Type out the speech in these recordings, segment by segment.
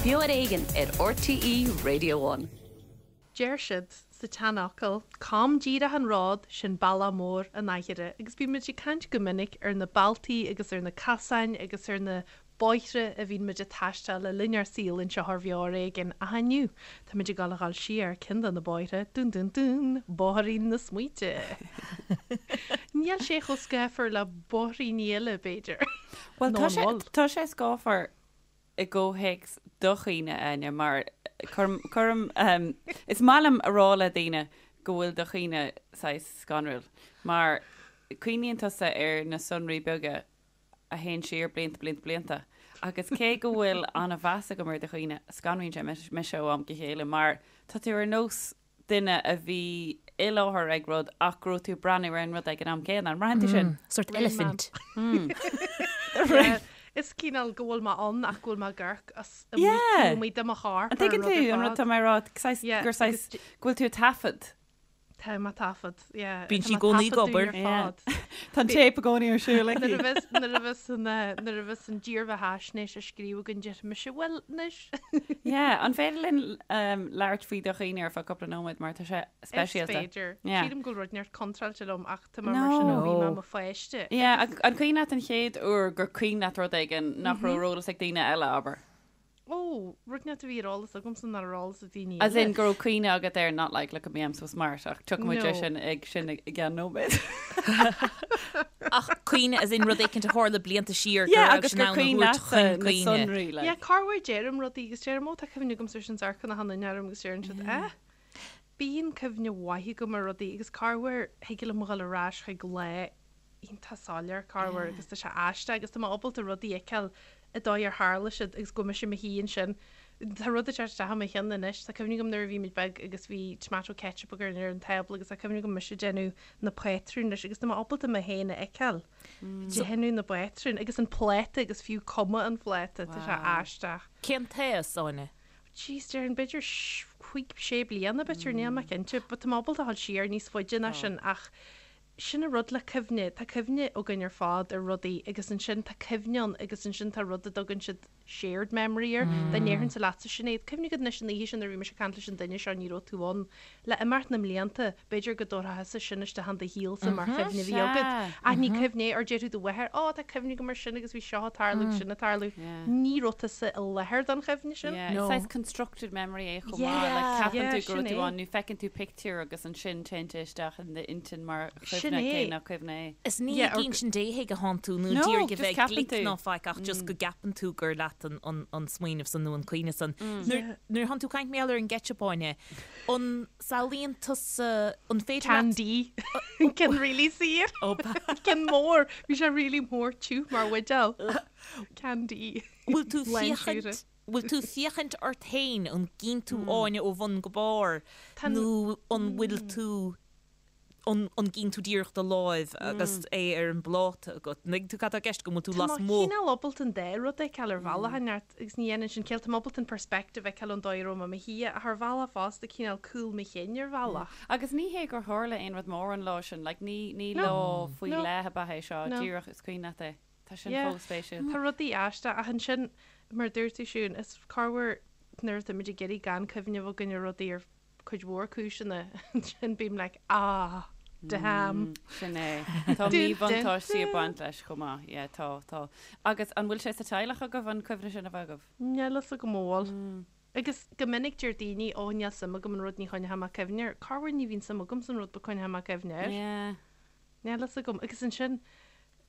Beo ar Éigean ar RTÉ Radio One. Deir siad sa tseanfhocal, 'Com díreach an ród, sin bealach mór an aithire' agus bíonn muid ag caint go minic ar na bealtaí agus ar na casáin agus ar na bóithre a bhíonn muid ag taisteal le linn ár saoil anseo ar Bheo ar Éigean ach inniu tá muid ag dul a dhul siar ceann de na bóithre, dún dún dún, bóithrín na smaointe. Níl sé chomh scáfar le bóithríní eile, b'fhéidir. Bhuel, Nó tá an sé, bhfuil? tá sé scáfar i gcomhthéacs do chuimhne, Áine, mar cuirim, cuirim, ehm, is maith liom a rá le daoine go bhfuil do chuimhne saghas scanrúil, mar cuimhníonn tusa ar na sonraí beaga a théann siar blianta, blianta, blianta. Agus cé go bhfuil an-mheas agam ar do chuimhne, scanraíonn sé mise ó am go chéile mar tá tú ar nós duine a bhí i láthair ag rud ach go raibh tú ag breathnú ar an rud ag an am céanna. An mbraitheann tú sin? Sort eilifint. Is cineál go bhfuil mé ann ach go bhfuil mé ag amharc as amuigh amuigh de mo chorp An dtuigeann tú an rud atá mé a rá? Gur saghas go bhfuil tú ag taifead. Tá mé ag taifead, yeah. Bíonn sí i gcónaí ag obair. Tá an téip i gcónaí ar siúl aici. Nuair a bheas, nuair a bheas an, nuair a bheas an dírbheathaisnéis á scríobh againn déarfaidh mise, bhuel, anois. Yeah, an féidir linn labhairt faoi do chuimhne ar feadh cúpla nóiméad mar tá sé speisialta. Is féidir. Yeah. Sílim go bhfuil rud inteacht contráilte liom ach tá mé mar sin ó bhí mé i mo pháiste. Yeah, an cuimhin leat an chéad uair gur cuimhin leat rud éigin nach raibh ar eolas ag daoine eile, abair? Ó, rud inteacht a bhí ar eolas agamsa nach raibh ar eolas ag daoine eile. As in go raibh cuimhne agat air, not like look at me I'm so smart ach tiocfaidh muid air sin ag sin i gceann nóiméad. Ach cuimhne as in rud éicint a tharla blianta siar go Yeah, raibh agus sin gur ann a cuimhin thabhairt leatsa chun na cuimhne. sonraí like. Yeah, corruair deirim rudaí agus deirim ó tá cuimhne agamsa ar sin is amharcann achan duine orm agus deireann siad eh? Bíonn cuimhne mhaith agam ar rudaí agus corruair thig liom a dhul ar ais chuig lá iontach soiléir corruair agus tá sé aisteach agus tá mé ábalta rudaí a fheiceáil an dóigh ar tharla siad agus go bhfuil mise i mo shuí ansin. Tá rud ag teacht isteach i mo cheann anois. Tá cuimhne agam nuair a bhí muid beag agus bhí tomato ketchup againn ar an tábla agus tá cuimhne agam mise ag déanamh na pátrún leis agus tá mé ábalta mé féin a fheiceáil ag déanamh na bpátrún agus an pláta agus fiú cuma an phláta. Tá sé aisteach. Cén t-aois, Áine? Jeez, déarfainn b'fhéidir chúig, sé bliana b'fhéidir, níl mé cinnte, but tá mé ábalta a dhul siar níos faide ná sin ach Sin an rud le cuimhne, tá cuimhne againn ar fad ar rudaí agus ansin tá cuimhne ann agus ansin tá rud a dtugann siad shared memory air. Dá ndéarfainnse leatsa Sinéad, cuimhnigh agat anois an oíche sin nuair a bhí mise ag caint leis an duine seo ní raibh tú ann. Le imeacht na mblianta, b'fhéidir go dtabharfá thusa sin isteach in do shaolsa mar chuimhne a bhí agat. Ach ní cuimhne é, or déarfadh do mháthair, Ó, tá cuimhne agam ar sin agus bhí seo ag tarlú agus sin ag tarlú. Ní raibh tusa i láthair don chuimhne sin. Yeah, is saghas constructed memory é chomh maith. Like, ceapann tú go raibh tú ann nó feiceann tú pictiúr agus ansin téann sé isteach in d'intinn mar chuimhne cé nach cuimhne é. Is ní ag insint Dé chuige atánn tú nó ag iarraidh a bheith glic ná faic ach just go gceapann tú gur leat an smaoineamh san nó an cuimhne san. Nuair atánn tú ag caint mar gheall ar an gceitseap, Áine, an samhlaíonn tusa, an féidir leat. Can D. Ceann really saor. Ceann mór. Bhí sé really mór tiubh mar bhuidéal. Can D. Bhfuil tú féachaint, bhfuil tú féachaint ort féin, an gcíonn tú Áine ó bhun go barr nó an bhfuil tú, an an gcíonn tú díreach do láimh agus é ar an bpláta agat? An dtuigeann tú cad tá i gceist agam, an bhfuil tú Tá mé lasmuigh? cineál ábalta an dá rud a fheiceáil ar bhealach inteacht agus ní dhéanann sin ciall, tá mé ábalta an perspective a fheiceáil ón dóigh a raibh mé i mo shuí ach ar bhealach fosta cineál cúl mo chinn ar bhealach. Agus ní hé gur tharla aon rud mór an lá sin, like ní ní lá faoi leith ab ea é seo, díreach is cuimhin leat é. Tá sin Yeah. chomh spéisiúil. Tá rudaí aisteach ach ansin, mar a dúirt tú Siún, is corruair nuair atá muid ag iarraidh gan cuimhneamh againn ar rudaí ar cuid mhór cúiseanna, ansin bím like ah, damn. Sin é. Tá míbhuntáistí ag baint leis chomh maith. Yeah, tá, tá. Agus an bhfuil sé sa teaghlach agaibh an cuimhne sin a bheith agaibh? Níl fhios agam an bhfuil. Agus go minic deir daoine, ó níl suim agam in rud ní choinneoidh mé cuimhne air. Corruair ní bhíonn suim agam san rud but coinneoidh mé cuimhne air. Yeah. Níl fhios agam. Agus ansin,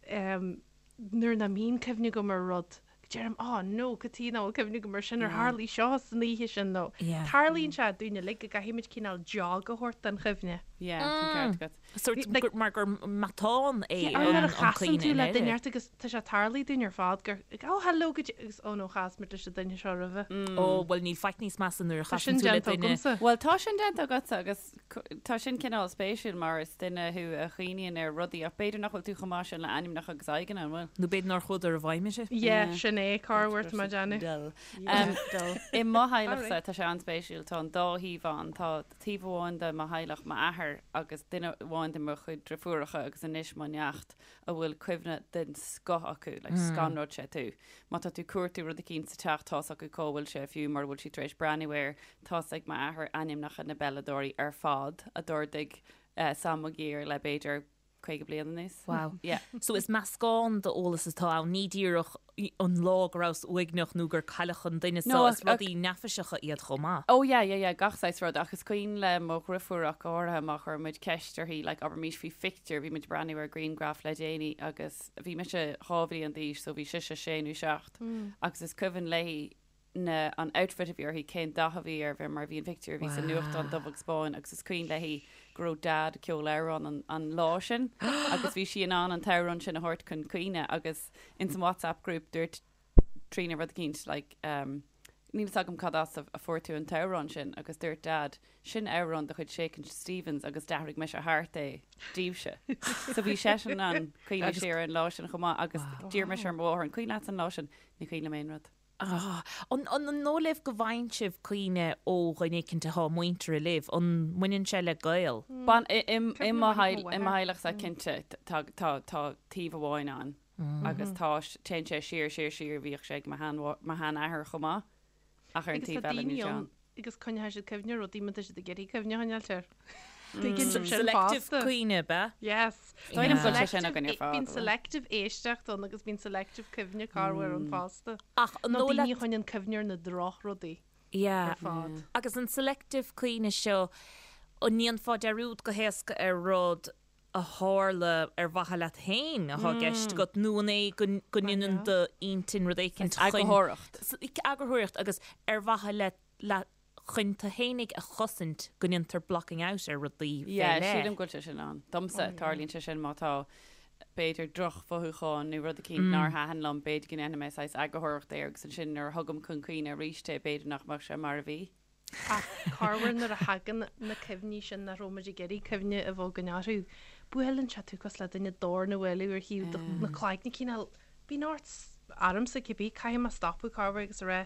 nuair nach mbíonn cuimhne agam ar rud, deirim, oh no, cad chuige nach bhfuil cuimhne agam ar sin, ar tharlaigh seo san oíche sin nó. Tarlaíonn sé dúinn uilig go gcaithfidh muid cineál jog a thabhairt don chuimhne. Yeah, tá an ceart agat. Sórt mar gur matán é an an Nuair a chasann cuimhne tú in le Éirinn. duine ort agus tá sé tarlaithe dúinn ar fad gur, oh hello go dtí, agus oh no chas muid leis an duine seo roimhe. Ó, bhuel níl faic níos measa nuair a Tá sin chasann tú le déanta duine. agamsa. Bhuel tá sin déanta agatsa agus Tá sin cineál spéisiúil mar is duine thú a chuimhníonn ar rudaí ach b'fhéidir nach bhfuil tú chomh maith sin le ainmneacha agus aghaidheanna, an bhfuil? Nó b'fhéidir nár chuadar i bhfeidhm uirthi. Yeah, sin é. é corruair tá mé ag déanamh. Dull. Yeah, dull. I mo theaghlachsa, tá sé an-spéisiúil, tá an dá thaobh ann. Tá taobh amháin de mo theaghlach, m'athair agus duine amháin de mo chuid driofúracha agus anois mo neacht, a bhfuil cuimhne den scoth acu, like scanróidh sé tú. Má tá tú ag cuartú rud eicínt sa teach, tá's acu cá bhfuil sé fiú mura bhfuil siad tar éis breathnú air. Tá's ag m'athair ainmneacha na bpeileadóirí ar fad a d'ardaigh Sam Maguire le b'fhéidir 50 bliain anuas. Wow. Yeah. So is meascán d'eolas atá ann, ní díreach an lá go rabhas uaigneach nó gur cailleadh an duine No, seo, is ach, ach, rudaí neafaiseacha iad chomh maith. Oh yeah, yeah, yeah, gach saghas rud, ach is cuimhin le mo dhriofúr ach go háirithe má chuir muid ceist uirthi, like abraimis faoi phictiúr, bhí muid ag breathnú ar ghrianghraf le déanaí agus bhí mise 2 bhliain d'aois so bhí sise sé nó seacht agus is cuimhin léi na, an outfit a bhí uirthi, cén dath a bhí air, bhí mar bhí an pictiúr a bhí sa nuachtán dubh agus bán agus is cuimhin léi go raibh Dad ag ceol amhrán an, an lá sin agus bhí sí in ann an t-amhrán sin a thabhairt chun cuimhne agus ins an WhatsApp group dúirt Tríona rud eicínt like um, níl fhios agam cad as a, a fuair tú an t-amhrán sin agus dúirt Dad sin amhrán de chuid Shakin' Stevens agus d'athraigh mise thart é daoibhse. So bhí seisean in ann cuimhneamh siar ar an lá sin chomh maith agus d'iarr mise ar mo mháthair an cuimhin leat an lá sin? Ní cuimhin liom aon rud. Ah, an, an, an dóigh libh go bhfaigheann sibh cuimhne ó dhuine éicint atá muinteartha libh? An mbaineann sé le gaol? Bain, i, i, i mo theaghlachsa cinnte tá, tá, tá taobh amháin ann agus tá, téann sé siar, siar, siar, bhíodh sé ag mo shean, mo sheanathair chomh maith ach ar an Agus tá taobh eile daoine níl sé ann ann. agus coinneoidh siad cuimhne ar rudaí má tá siad ag iarraidh cuimhne a choinneáilt air. Tuigeann sibh sin Selective fosta. cuimhne, ab ea? Yes. Is dóigh liom go bhfuil sé sin againn ar fad, Bíonn bhfuil? selective éisteacht ann agus bíonn selective cuimhne corruair ann fosta. Ach an Nó dóigh daoine leat a choinníonn cuimhne ar na drochrudaí Yeah. ar fad. Agus an selective cuimhne seo, an ndéanfá dearúd go héasca ar rud a tharla ar mhaithe leat féin atá i gceist agat nó an é go go ndéanann d'intinn rud éicint chun Eagarthóireacht. Eagarthóireacht agus ar mhaithe le le chun tú fhéinig a chosaint go ndéantar blocking out ar rudaí fé Yeah, leith. sílim go bhfuil sé sin ann. Domsa, tarlaíonn sé sin má tá b'fhéidir drochmhothúchán nó rud eicínt nár thaitin liom, b'fhéidir go ndéanfaidh mé saghas eagarthóireacht air agus ansin nuair a thugaim chun cuimhne arís é, b'fhéidir nach mbeadh sé mar a bhí. Ach corruair nuair a thagann na cuimhní sin nach raibh muid ag iarraidh cuimhne a bheith againn orthu, buaileann sé tú cosúil le duine dorn a bhualadh ar thaobh do na cloigne cineál, bíonn ort, ormsa cibé, caithfidh mé stopadh corruair agus a rá,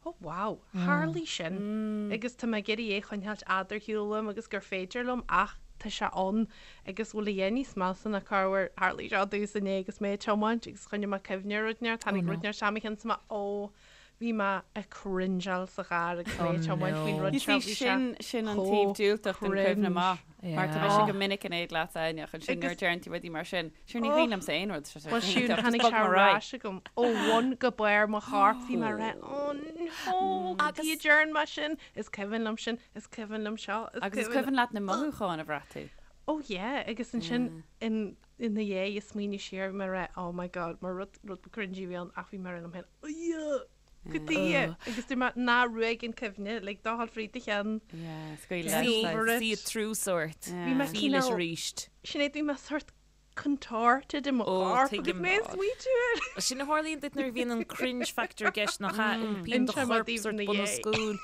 oh wow, tharlaigh sin agus tá mé ag iarraidh é a choinneáilt fhad ar shiúl uaim agus gur féidir liom ach tá sé ann agus bhfuil a dhath níos measa ná corruair, tharlaigh seo domhsa inné agus mé ag tiomáint agus choinnigh mé cuimhne ar rud inteacht, tháinig rud inteacht isteach i mo cheann is mé oh Bhí mé ag cringeáil sa charr agus mé ag tiomáint faoin rud You seo, see, bhí sé sin, sin an taobh chomh diúltach den chuimhne cringe. maith. Mar tá mise go minic in éad leat, Áine, ach ansin nuair a Agus- deireann tú rudaí mar sin, sure ní cuimhin liomsa aon rud, tá sé Well siúd, iontach, just tháinig bog sé mé ar ar aghaidh. ais agam ó bhun go barr mo choirp, bhí mé ag rá, oh no, Agus- cad chuige a ndearna mé sin, is cuimhin liom sin, is cuimhin liom seo, is Agus is cuimhin cuimhin leat na mothúcháin a bhraith tú. Oh yeah, agus ansin in ina dhiaidh ag smaoineamh siar, bhí mé ag rá, oh my god, mar rud, rud ba cringy a bhí ann ach bhí mé ag rá liom féin, ugh, cad chuige, agus dúirt mé, ná ruaig an cuimhne, like, do dhul fríd do cheann. Yeah, scaoil See leis. over it. See it through sort. Bhí mé Feel it cineál, arís. Sinéad, bhí mé sort contorted i mo Ó, chorp agus tuigim. mé ag smaointiú air. Sin a tharlaíonn duit nuair a bhíonn an cringe factor i gceist nach ea? Iompaíonn do Inseoidh mé chorp daoibh sort ina bun os dhiaidh. cionn.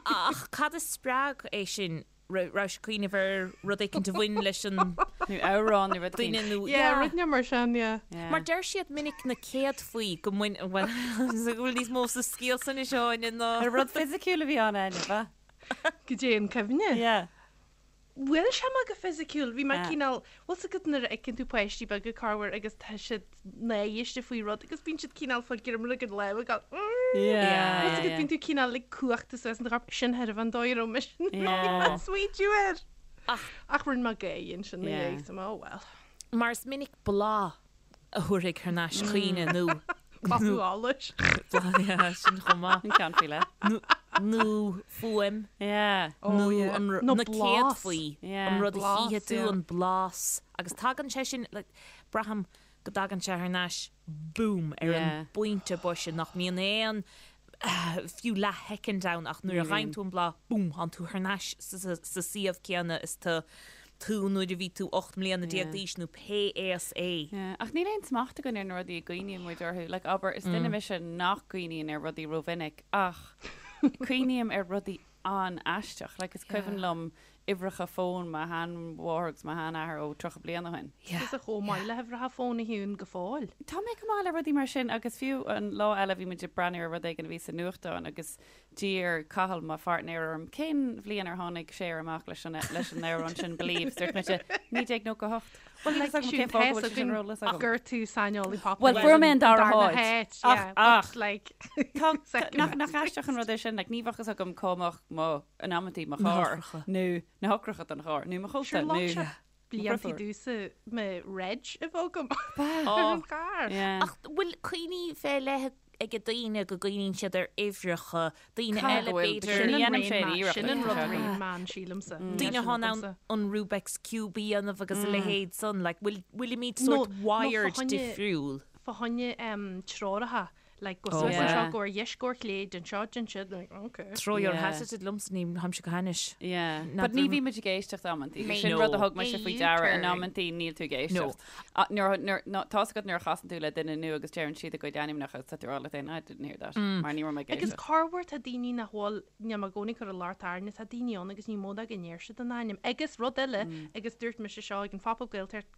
Ach cad a spreag é sin? Raibh sé ag cuimhneamh ar rud éicint a bhain leis an Nó amhrán nó rud duine éicint. nó Yeah, rud inteacht mar sin, yeah. Yeah. Mar deir siad minic na céadfaí go mbain bhuel go bhfuil níos mó sa scéal san anois Áine ná Ar rud fisiciúil a bhí ann Áine, ba? Goidé an cuimhne. Yeah. Bhuail sé mé go fisiciúil, bhí mé Yeah. cineál, bhfuil 's agat nuair a fheiceann tú páistí beaga corruair agus tá siad náiste faoi rud agus bíonn siad cineál fá ghreim ag an lámh ag gabháil mm. Yeah, Bhfuil 's agat yeah. bíonn tú cineál like cuachta suas in do chorp, sin thairbhe an dóigh a raibh mise Yeah. ag smaointiú air. Ach- Ach rinne mé gáire ansin ina Yeah. dhiaidh, so mé, oh well. Mar is minic bláth a thabharfaidh thar n-ais cuimhne nó Bláthú allais. bláth yeah, sin chomh maith. An ceann faoi leith. Nó nó fuaim Yeah. Oh, nó yeah. an Nó na blas. céadfaí Yeah. an rud a Blas, chífidh tú yeah. an blas agus tagann sé sin like, braithim go dtagann sé thar n-ais boom ar an Yeah. bpointe boise nach mbíonn aon fiú leathshoicind ann ach nuair a gheibheann tú an bláth boom tánn tú thar n-ais sa suíomh céanna is tá tú nuair a bhí tú 18 mbliana d'aois nó pé aois é. Yeah. Ach níl aon smacht againn ar na rudaí a gcuimhníonn muid orthu. Like, abair, is duine mise nach gcuimhníonn ar rudaí rómhinic ach cuimhním ar rudaí an-aisteach. Like, is cuimhin liom. uimhreacha fóin mo sheanmháthair agus mo sheanathair ó 30 bliain ó shin. Tusa chomh maith le huimhreacha fóin a Shiún go fóill. Tá mé go maith le rudaí mar sin agus fiú an lá eile bhí muid ag breathnú ar rud éigin a bhí sa nuachtán agus d'iarr Cathal, mo pháirtnéir, orm cén bhliain ar tháinig Cher amach leis an leis an amhrán sin Believe. Dúirt mise 1998. Bhuel like Siún tá a fhios againn gur tú saineolaí pop Bhuel fuair mé an dara háit. Ach ach like tá nach nach aisteach an rud é sin like ní bheadh fhios agam cá mbeadh mo in amantaí mo charr nó na heochracha don charr nó mo chóta nó Sure blianta domhsa mo reg a bheith agam ar an charr. Ach bhfuil cuimhní fé leith ag daoine go gcuimhníonn siad ar uimhreacha, daoine eile b'fhéidir. Sin an raon meán, sin an rud raon meán sílimse. Daoine atá in ann an Rubik's Cube a dhéanamh agus a leithéid san, like bhfuilimid sort wired difriúil? Fá choinne treoracha Like, go suas anseo, go ar dheis, go ar chlé, déan seo, déan siúd, like, okay. Throw your hat at it liomsa, ní tháimse go hainnis. Yeah. But ní bhímid ag éisteacht amantaí. Sin rud a thug mise faoi deara in amantaí níl tú ag éisteacht. Nuair, nuair, ná, tá's agat nuair a chasann tú le duine nua agus deireann siad a gcuid ainmneacha agus tá tú ag rá leat féin, I didn't hear that. Mar ní raibh mé ag éisteacht. Agus corruair tá daoine nach bhfuil, níl mé i gcónaí ag cur an locht orainne, tá daoine ann agus ní mó ná go ndeir siad a n-ainm. Agus rud eile, agus dúirt mise seo ag an Phop-Up Gaeltacht,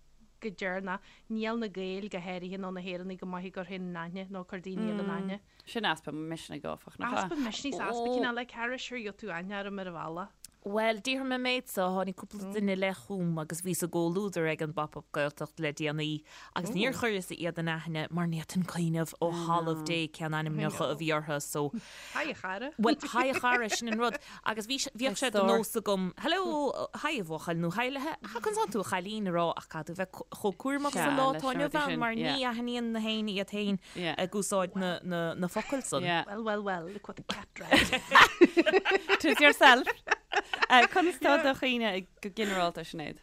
go deireanach. Níl na Gaeil, go háirithe, nó na hÉireannaigh go maith ag cur féin in aithne nó ag cur daoine eile in aithne. Sin easpa misnigh, áfach, nach ea? Easpa misnigh 's easpa cineál like cara, sure gheobhaidh tú aithne orm ar an bhealach. Bhuel, déarfaidh mé an méid so, tháinig cúpla duine i leith chugam agus bhíos i gcomhluadar ag an bPop Up Gaeltacht le déanaí agus níor chuireas iad in aithne mar ní fhéadfainn cuimhneamh ó thalamh Dé cén ainmneacha a bhí orthu so Haigh a chara. Bhuel, haigh a chara, sin an rud. Agus bhí, bhíodh sé de nós agam, hello, haigh a bhuachaill nó haigh le, ha, conas tánn tú a chailín a rá ach caithfidh tú bheith chomh cúramach sa lá atá inniu ann mar ní aithníonn na héinne iad féin ag úsáid na, na, na focail san. Well, well, well, look what the cat dragged. Tis yourself. Conas tá do chuimhne go ginearálta, Sinéad?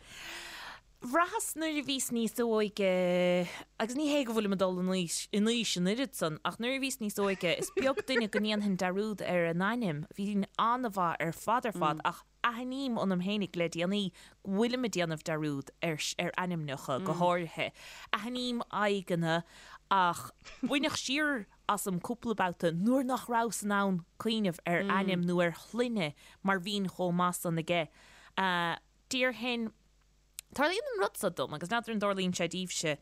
Bhraitheas nuair a bhíos níos óige, agus ní hé go bhfuilim ag dul in aois, in aois an oiread san, ach nuair a bhíos níos óige, is beag duine go ndéanfainn dearúd ar a n-ainm. Bhínn an-mhaith ar fad ar fad, ach aithním ionam fhéinig le déanaí go bhfuilim ag déanamh dearúd ar, ar ainmneacha go háirithe. Aithním aghaidheanna ach baineadh siar asam cúpla babhta nuair nach rabhas in ann cuimhneamh ar ainm nó ar shloinne mar bhínn chomh maith san aige. Déarfainn. Tarlaíonn an rud seo dom, agus n'fheadar an dtarlaíonn sé daoibhse,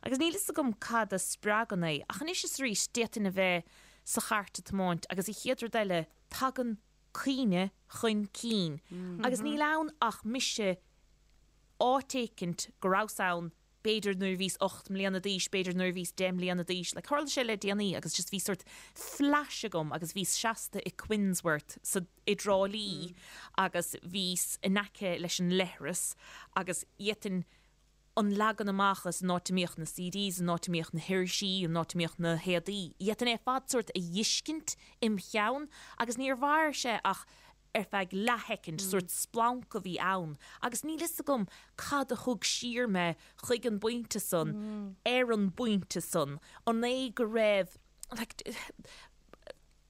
agus níl fhios agam cad a spreagann é, ach anois is arís d'fhéadfainn a bheith sa chairt ag tiomáint agus an chéad rud eile tagann cuimhne chun cinn agus níl ann ach mise áit éicint go rabhas ann b'fhéidir nuair a bhíos 8 mbliana d'aois, b'fhéidir nuair a bhíos 10 mbliana d'aois, like tharla sé le déanaí agus just bhí sort flash agam agus bhíos seasta i Quinnsworth sa, i dTrá Lí agus bhíos in aice leis an leithreas agus d'fhéadfainn an leagan amach is an áit a mbíodh na CDs, an áit a mbíodh na hirisí, an áit a mbíodh na héadaí, d'fhéadfainn é ar fad sort a fheiscint im cheann agus níor mhair sé ach ar feadh leathshoicind, sórt splanc a bhí ann agus níl fhios agam cad a thug siar mé chuig an bpointe san, ar an bpointe san, an é go raibh, like,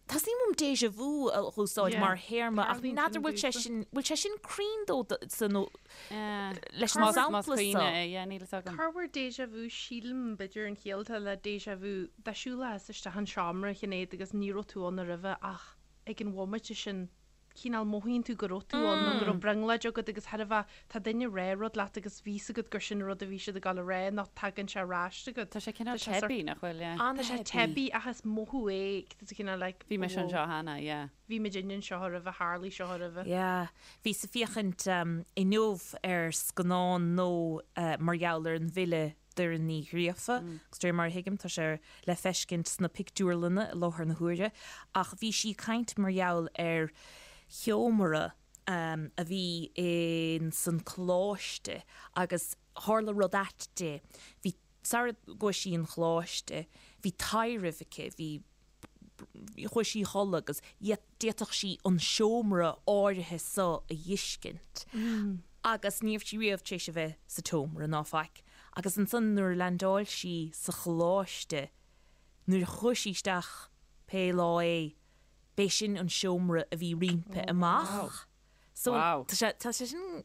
teastaíonn uaim déjà vu a úsáid mar théarma ach n'fheadar bhfuil sé sin, bhfuil sé sin cruinn dó sa nó leis an sampla seo? Níl fhios agam. Corruair déjà vu, sílim, b'fhéidir an chiall atá le déjà vu, dá siúlfá isteach an seomra, a Shinéad, agus ní raibh tú ann roimhe ach ag an bhomaite sin, cineál mothaíonn tú go raibh tú ann nó go raibh brionglóid agat agus thairbhe tá duine ag rá rud leat agus bhí 'fhios agat gur sin an rud a bhí siad ag dul a rá nó tagann sé ar ais agat. Tá sé cineál teibí, nach bhfuil, yeah. Tá sé teibí ach is mothú é, tá sé cineál like, Bhí mise anseo cheana, yeah. Bhí muid anseo roimhe, tharlaigh seo roimhe. Yeah. Bhíos ag féachaint inniu ar scannán nua mar gheall ar an bhfile Doireann Ní Ghríofa, agus de réir mar a thuigim tá sé le feiscint sna pictiúrlanna i láthair na huaire, ach bhí sí ag caint mar gheall ar sheomra a bhí in san coláiste agus tharla rud ait di. Bhí, sara gcuaigh sí 'on choláiste, bhí taidhreamh aici, bhí, chuaigh sí a chodladh agus d'fhéadfadh sí an seomra áirithe so a dh'fheiscint agus ní raibh sí riamh tar éis a bheith sa tseomra ná faic agus ansan nuair a leaindeáil sí sa choláiste nuair a chuaigh sí isteach pé lá é b'é sin an seomra a bhí roimpi amach so tá sé tá sé sin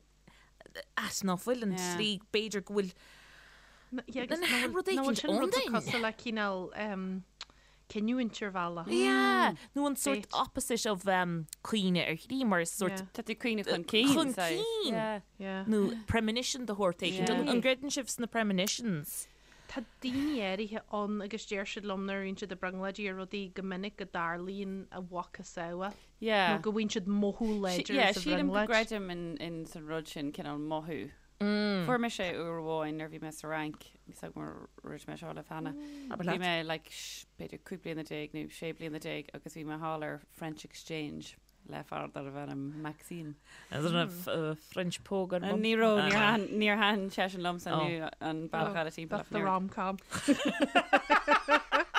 ait ná fuil an tslí b'fhéidir go bhfuil rud éicint ann duinn. Cosúil le cineál. cinniúint ar bhealach. Yeah, nó an sort opposite of cuimhne ar shlí mar is sort. Tá tú ag cuimhneamh chun cinn. Chun cinn! Yeah. Nó premonition de shórt éigin. An gcreideann sibh sna premonitions? Tá daoine áirithe ann agus deir siad liom nuair a bhíonn siad ag brionglóidí ar rudaí go minic go dtarlaíonn a mhacasamhail. Yeah. Nó go bhfaigheann siad mothú láidir Yeah, sa sílim go bhrionglóid. gcreidim in san rud sin, cineál mothú. Fuair mise é uair amháin nuair a bhí mé sa Fhrainc, níl 's agam ar dhúirt mé seo libh cheana. Bhí mé like b'fhéidir 15 bliana nó 16 bliana agus bhí mé thall ar French Exchange le fear darbh ainm Maxime. Is an raibh French póg ar bun? Ní raibh, níor thaitin, níor thaitin seisean liomsa nó an bealach eile timpeall. That's the rom-com.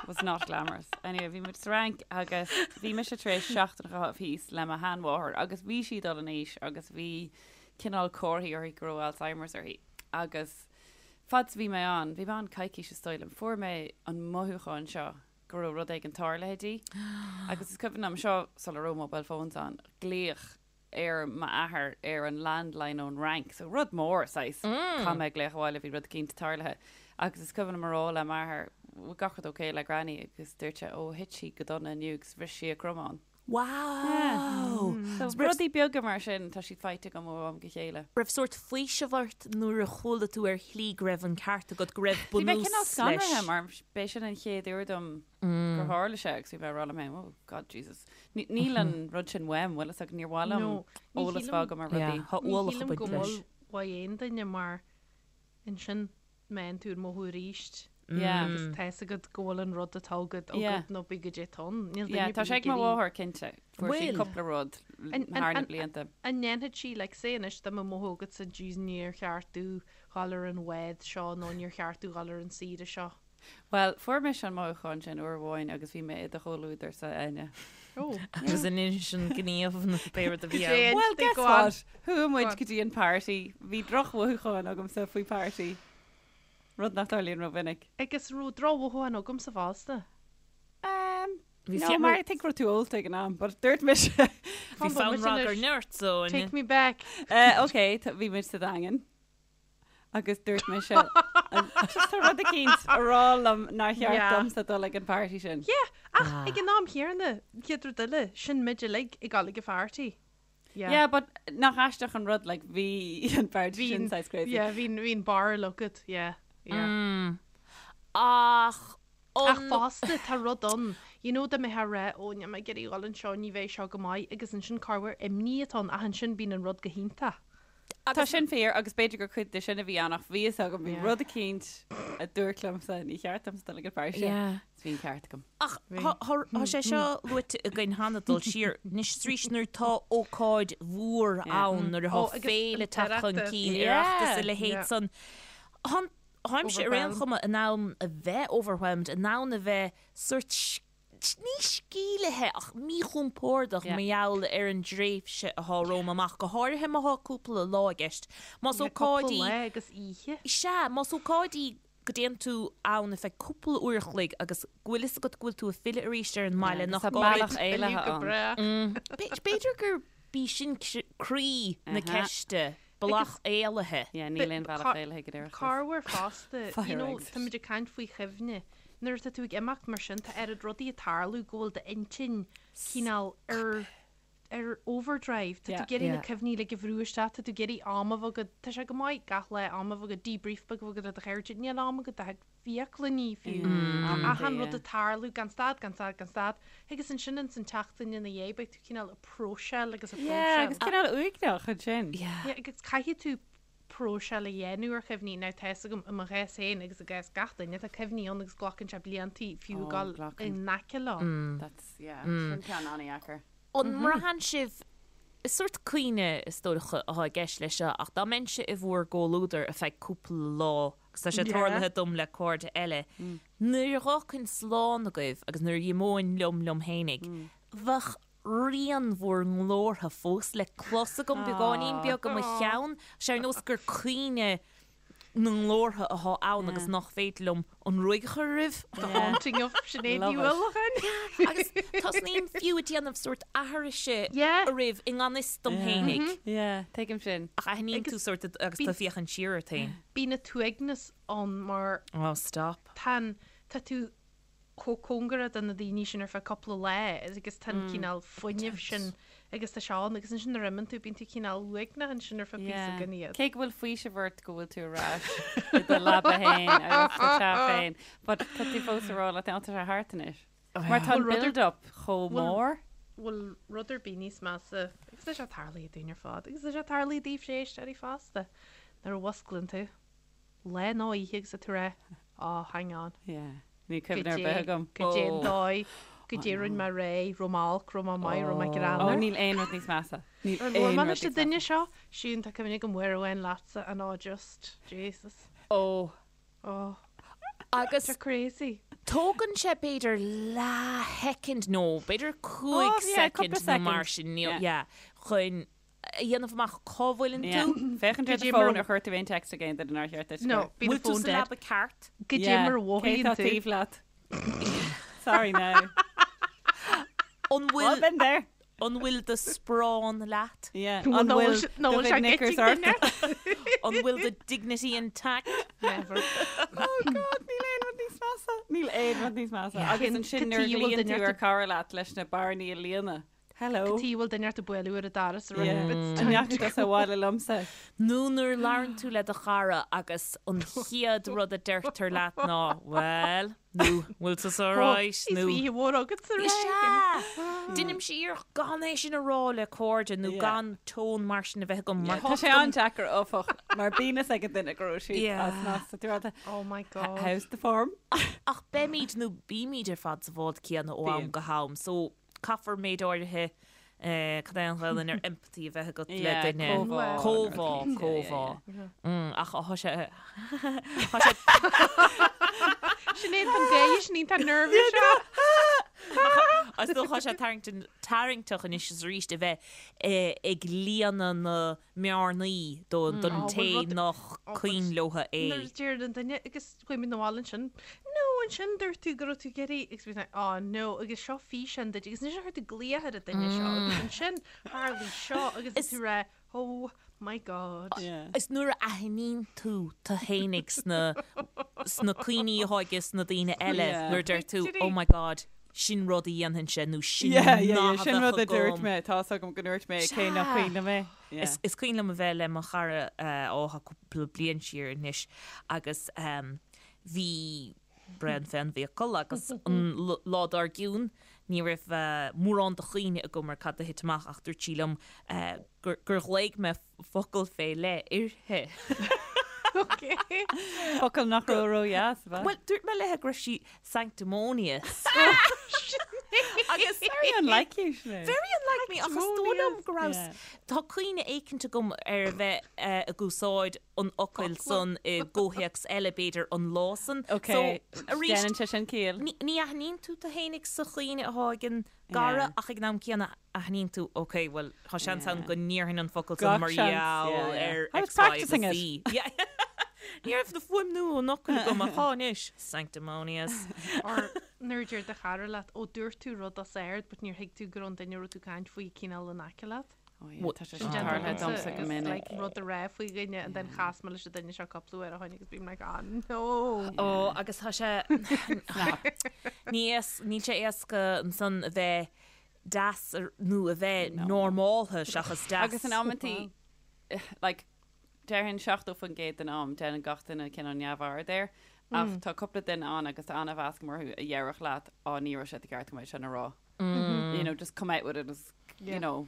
Was not glamorous. Anyway, bhí muid sa Fhrainc agus bhí mise tar éis seachtain a chaitheamh thíos le mo sheanmháthair agus bhí sí ag dul in aois agus bhí cineál comharthaí uirthi go raibh Alzheimer's uirthi agus fad is a bhí mé ann, bhí mé ann coicís is dóigh liom, fuair mé an mothúchán seo go raibh rud éigin tarlaithe di agus is cuimhin liom seo sula raibh mobile phones ann, glaoch ar m'athair ar an landline ón Fhrainc, so rud mór saghas, caithfidh mé glaoch abhaile, bhí rud eicínt tarlaithe agus is cuimhin liom a rá le m'athair, bhfuil gach rud ok le Granny agus dúirt sé, ó thit sí go dona inniu agus bhris sí a cromán. Wow! So rudaí beaga mar sin, tá siad faighte agam ó am go chéile. Raibh sórt faoiseamh ort nuair a chuala tú ar shlí go raibh an ceart agat, go raibh Bhí mé bunús cineál leis? scanraithe mar b'é sin an chéad uair dom gur tharla sé agus bhí mé ag rá liom féin, oh God Jesus. Níl an rud sin uaim, bhfuil fhios agat, níor mhaith liom eolas a bheith agam ar rudaí. Tá Ní ualach ag shílim baint go leis. bhfuil uaidh aon duine mar ansin meánn tú an mothú aríst Yeah. agus tá fhios agat go bhfuil an rud atá agat Yeah. agat nó bí go dté tonn. Níl duine Yeah, ar tá bith sé ag mo ag iarraidh- mháthair cinnte. Fuair sí Bhfuil? cúpla rud An- thar na an- blianta. An ndéanfaidh sí, like, say anois dá mbeadh mothú agatsa jeez níor cheart domh dhul ar an bhád seo nó níor cheart domh dhul ar an saoire seo. Bhuel, fuair mise an mothúchán sin uair amháin agus bhí mé i do chomhluadarsa, Áine. Oh. Agus an sin gníomh na pé rud a bhí ann. Well, guess Go on. what? Chuaigh muid go dtí an party. Bhí drochmhothúchán agamsa faoi party. Rud nach dtarlaíonn rómhinic. Agus raibh drochmhothúchán agamsa fosta. Um, Bhí no, fiú- mar I think raibh tú ólta ag an am, but dúirt mise. Bhí fonn ragairne ort, so. Take me back. Uh, ok, bhí muid sa Daingean. Agus dúirt mise, just tá rud eicínt a rá liom nár cheart Yeah. domsa dul ag an party sin. Yeah, ach ag an am chéanna, chéad rud eile, sin muid uilig ag dul ag an pharty. Yeah. Yeah, but nach aisteach an rud, like, bhí an party sin saghas crazy. Yeah, bhí bhí an barúil agat, yeah, yeah. Mm. Ach Ach an fosta, tá rud ann, you know, dá mbeifeá ag rá, ó, níl mé ag iarraidh dhul anseo, ní bheidh seo go maith, agus ansin corruair imní atá ann, ach ansin bíonn an rud go hiontach. Tá sin fíor agus b'fhéidir gur cuid de sin a bhí ann ach bhí fhios agam, bhí rud eicínt a dúirt liomsa, ní cheart domsa dul ag an pharty sin. Is bhí an ceart agam. Ach tá sé seo luaite againn cheana dul siar anois is arís nuair atá ócáid mhór ann, nuair atá féile ag teacht chun cinn, Oireachtas a leithéid san. Táimse ar aon chuma in ann a bheith overwhelmed, in ann a bheith sórt ní sceimhlithe ach míchompordach mar gheall ar an dtréimhse atá romham amach, go háirithe má thá cúpla lá i gceist. Más ócáid í. Cúpla lá agus oíche. Sea, más ócáid í go dtéann tú ann ar feadh cúpla uair a chloig agus go bhfuil fhios agat go bhfuil tú ag filleadh arís ar an mbaile nach Tá gá bealach duit. éalaithe Go ann. breá. B'fhéidir gurb í sin croí na ceiste. Bealach éalaithe. Yeah, níl aon bhealach éalaithe go deireadh. Corruair fosta, you know, Fire tá muid ag caint faoi chuimhne. Nuair atá tú ag imeacht mar sin, tá oiread rudaí ag tarlú go bhfuil d'intinn cineál ar ar overdrive. Tá tú ag iarraidh na cuimhní uilig a bhrú isteach, tá tú ag iarraidh am a bheith agat, tá sé go maith gach lá am a bheith agat, debrief beag a bheith agat le do chairde, níl am agat do bhiaclannaí fiú. Achan rud ag tarlú gan stad, gan stad, gan stad. Agus ansin ins an tseachtain ina dhiaidh beidh tú cineál ag próiseáil agus ag Yeah, próiseáil. agus cineál uaigneach ansin. Yeah. Yeah, agus caithfidh tú próiseáil a dhéanamh ar chuimhní. Now tá fhios agam i mo chás féin agus i gcás gach duine, tá cuimhní ann agus glacann sé bliantaí fiú Oh, dul glacann. in aice leo. That's, yeah, sin ceann an-dheacair. An mbraitheann sibh, is sórt cuimhne is dócha atá i gceist leis seo, ach dá mbeinnse i bhur gcomhluadar ar feadh cúpla lá, agus tá sé tarlaithe dom le cairde eile, nuair a dh'fhágfainn slán agaibh agus nuair a dh'imeoinn liom liom fhéinig, bheadh rian bhur nglórtha fós le clos agam beagáinín beag i mo cheann, sé ar nós gur cuimhne na nglórtha atá ann agus nach féidir liom an ruaig a chur oraibh. The haunting of Sinéad Ní Uallacháin. Agus tosnaím fiú ag déanamh sórt aithrise oraibh i ngan fhios dom fhéinig. Yeah, tuigim sin. Ach aithníonn tú sórt agus tú ag féachaint siar ort féin. Bíonn an t-uaigneas ann mar Oh, stop. tá an, tá tú. chomh cóngarach do na daoine sin ar feadh cúpla lá agus tá an cineál fuinnimh sin agus tá sé ann agus ansin nuair a imíonn tú bíonn tú cineál uaigneach ansin ar feadh píosa gan iad. Cé go bhfuil faoiseamh ort go bhfuil tú ar ais i do leaba féin agus sa teach féin, but tá tú fós ag rá leat féin, tá sé thart anois. Mar tá an build up chomh mór. Bhfuil rud ar bith níos measa agus tá sé tarlaithe dúinn ar fad agus tá sé tarlaithe daoibhse éisteoirí fosta nuair a mhusclaíonn tú. lá nó oíche agus tú ag rá, oh, hang on. Yeah. Níl cuimhne ar bith agam. Goidé an dóigh, goidé a rinne mé aréir, raibh mé olc, raibh mé maith, raibh mé greannmhar. Oh, níl aon rud níos measa. Níl Ar labhair aon mé rud leis an níos duine measa. seo? Siún, tá cuimhne agam uair amháin leatsa and oh just, Jesus. Oh. Oh. Agus. Tá crazy. Tógann sé b'fhéidir leathshoicind nó b'fhéidir 5 Oh, yeah, cúpla soicind nó mar soicind. sin, Yeah. yeah, chun a dhéanamh amach cá bhfuileann tú. Féachaint ar do fón ar chuir tú aon text ag aon duine nár cheart duit. No, bíonn Bhfuil tú fón sa dead. leaba ceart? Goidé mar a Cé mhothaíonn tá tú. taobh leat? Sorry now. An Well, bhfuil been there. an bhfuil do sparán leat? Yeah. An An bhfuil bhfuil nó do bhfuil sé chuid knickers gití ort? duine? An bhfuil do dignity intact? Never. Oh God, níl aon rud níos measa. Níl aon rud níos measa. Agus Cén ansin nuair a cad chuige a bhfuil ghlaonn duine tú ar ort chara leat leis na bearnaí a líonadh. Hello. Cad chuige a bhfuil duine ort ag bualadh ar an doras a Yeah. rá it's An time ndeachaigh to tusa go. abhaile liomsa? Nó nuair a labhrann tú le do chara agus an chéad rud a deirtear leat ná 'Bhuel' nó 'Bhfuil tusa alright' Is nó oíche mhór agatsa Is rá. ea! Deinimse iarracht gan é sin a rá le cairde nó Yeah. gan tón mar sin a bheith agam mar Tá sé an-deacair áfach mar bíonn fhios ag an duine go raibh siad Yeah. as meas tú rá Oh my God. How's the form? Ach beimid nó bímid ar fad sa bhád céanna ó am Bíonn. go ham so Caithfear méid áirithe, cad é an Ghaelainn ar empathy a bheith agat le duine. Comhbhá. Comhbhá, comhbhá. Ach tá sé, tá sé. Sinéad an gay, Sinéad tá nervous seo. Is dócha sé tarraingteach anois is arís a bheith ag líonadh na mbearnaí don té nach cuimhin leo é. Nuair a deir an duine agus chuaigh mé 'na bhaile ansin, no ansin dúirt tú go raibh tú ag iarraidh agus bhí mé oh no agus seo físeán duit agus ansin chuir tú glaoch ar an duine seo agus ansin tharlaigh seo agus tú ag rá oh my god. Is nuair a aithníonn tú tú fhéinig sna sna cuimhní atá aige sna daoine eile nuair a deir tú oh my god sin rud a dhéanfainnse nó sin nath a Sin rud bheadh a dúirt agam. mé, tá's agam go ndúirt mé cé nach cuimhin liom é. Is is cuimhin liom a bheith le mo chara ó tá cúpla bliain siar anois agus bhí braon fén bhfiacail agus an lá dár gcionn ní raibh mórán de chuimhne agam ar cad a thit amach ach dúirt sí liom gur gur ghlaoigh mé focal fé leith uirthi. Focal nach raibh ró-dheas, ab ea? Bhuel, dúirt mé léi go raibh sí sanctimonious. Agus very unlike you, Sinéad. Very unlike me, ach is dóigh liom go raibh, tá cuimhne éicint agam ar a bheith ag úsáid an fhocail san i gcomhthéacs eile, b'fhéidir, an lá san. Ok, So, arís, déanann sé sin ciall. ní aithníonn tú tú fhéinig sa chuimhne atá ag an gcara ach ag an am céanna aithníonn tú, ok, bhuel, tá seans ann go ndéarfainn an focal san Gach mar seans, gheall yeah, yeah. ar I was X, Y agus practicing it. Z. Yeah. Ní raibh na fuaimniú an fhocail agam ach tá anois. Sanctimonious. Or nuair a deir do chara leat, ó dúirt tú rud os ard but níor thuig tú go raibh an duine a raibh tú ag caint faoi cineál in aice leat. Oh yeah, tá sé Sin sin déanta tarlaithe agamsa domsa go agus minic. like rud a rá faoi dhuine and then chas mé leis an duine seo cúpla uair ó shin agus bím like ah no. Ó agus tá sé ní níl sé éasca ansan a bheith deas nó a bheith normáltha seachas deas. Agus in amantaí like déarfainn 70% den am déanann gach duine cineál neamhaird air ach tá cúpla duine ann agus tá an-mheas agam orthu a dhéarfadh leat á ní raibh sé de cheart agam é sin a rá. You know, just come out with it as, you know,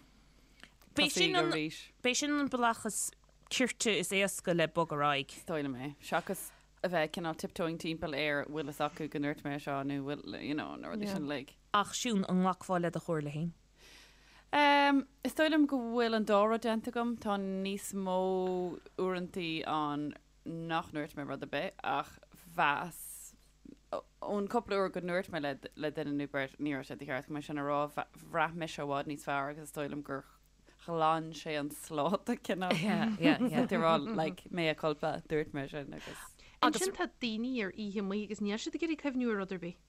B'é sin tosaigh an, arís. b'é sin an bealach is cirte is éasca le bogadh ar aghaidh. Is dóigh liom é. Seachas a bheith cineál tiptoeing timpeall ar bhfuil fhios acu go ndúirt mé seo nó bhfuil, you know, na rudaí sin uilig. Ach Siún, an nglacfá le do chomhairle féin? Em, is dóigh liom go bhfuil an dá rud déanta agam. Tá níos mó uaireantaí ann nach ndúirt mé rud ar bith ach mheas, ón cúpla uair go ndúirt mé le le duine nó beirt, ní raibh sé de cheart agam é sin a rá, bhraith mise i bhfad níos fearr agus is dóigh liom gur ghlan sé an sláta cineál. Yeah, yeah, yeah. Tú ag rá, like, mea culpa, dúirt mé sin agus. Ansin tá daoine ar oíche amuigh agus níl siad ag iarraidh cuimhniú ar rud ar bith.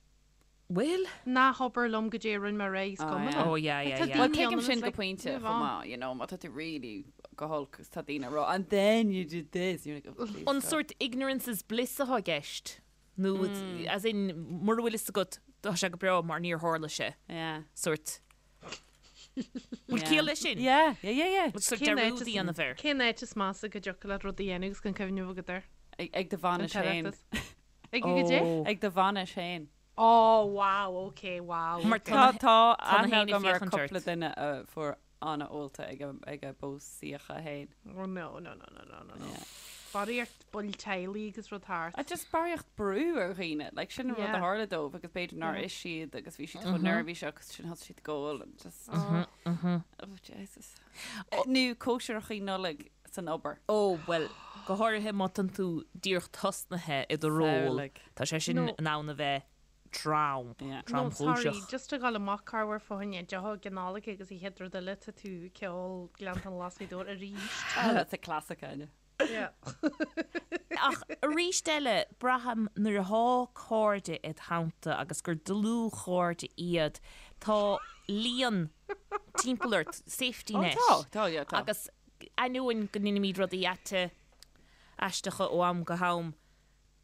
Bhfuil? Ná habair liom goidé a rinne mé aréir, is cuma liom. Oh yeah, yeah, yeah. Well, tuigim sin go pointe chomh maith, you know, má tá tú really go holc agus tá daoine ag rá, and then you did this, you're like, oh please An stop. sórt ignorance is bliss atá i gceist? Nó, as in, mura bhfuil fhios agat. Tá sé go breá mar níor tharla sé. Yeah. Sórt. Bhfuil ciall leis sin? Yeah, yeah, yeah, yeah. Sórt dearúd a dhéanamh air. Cén áit is measa go dtiocfadh leat rud a dhéanamh agus gan cuimhneamh agat air? Ag do bhainis féin. Ag goidé? Ag do bhainis féin. Oh, wow, ok, wow. Mar Tá tá tá na aithne héinne agam ar féachaint cúpla ort. duine a fuair an-ólta ag a ag a bpósaíocha féin. Oh no, no, no, no, no, no, no. Barraíocht baill teaghlaigh agus rud thart. A just barraíocht brú ar dhaoine, like sin an rud a Yeah. tharla dóibh agus b'fhéidir nár ith siad agus bhí siad chomh neirbhíseach agus sin thosaigh siad ag ól and just oh Jesus. Nó cóisireachaí Nollag san obair. Ó, bhuel, go háirithe má tánn tú díreach tosnaithe i do ról, Samhlaigh. tá sé sin No. in ann a bheith trom, Yeah. No, sorry, tromchúiseach. just a ghabháil amach corruair fá choinne deoch ag an Nollaig agus an chéad rud eile tá tú ag ceol Gleanntáin Ghlas Ghaoth Dobhair arís. Ah, that's a classic, Áine. Yeah. Ach arís eile, braithim nuair atá cairde id theannta agus gur dlúthchairde iad, tá líon timpeall ort, safety Oh, net. tá, tá, yeah, tá. Agus ainneoin go ndeinimid rudaí aite aisteacha ó am go ham,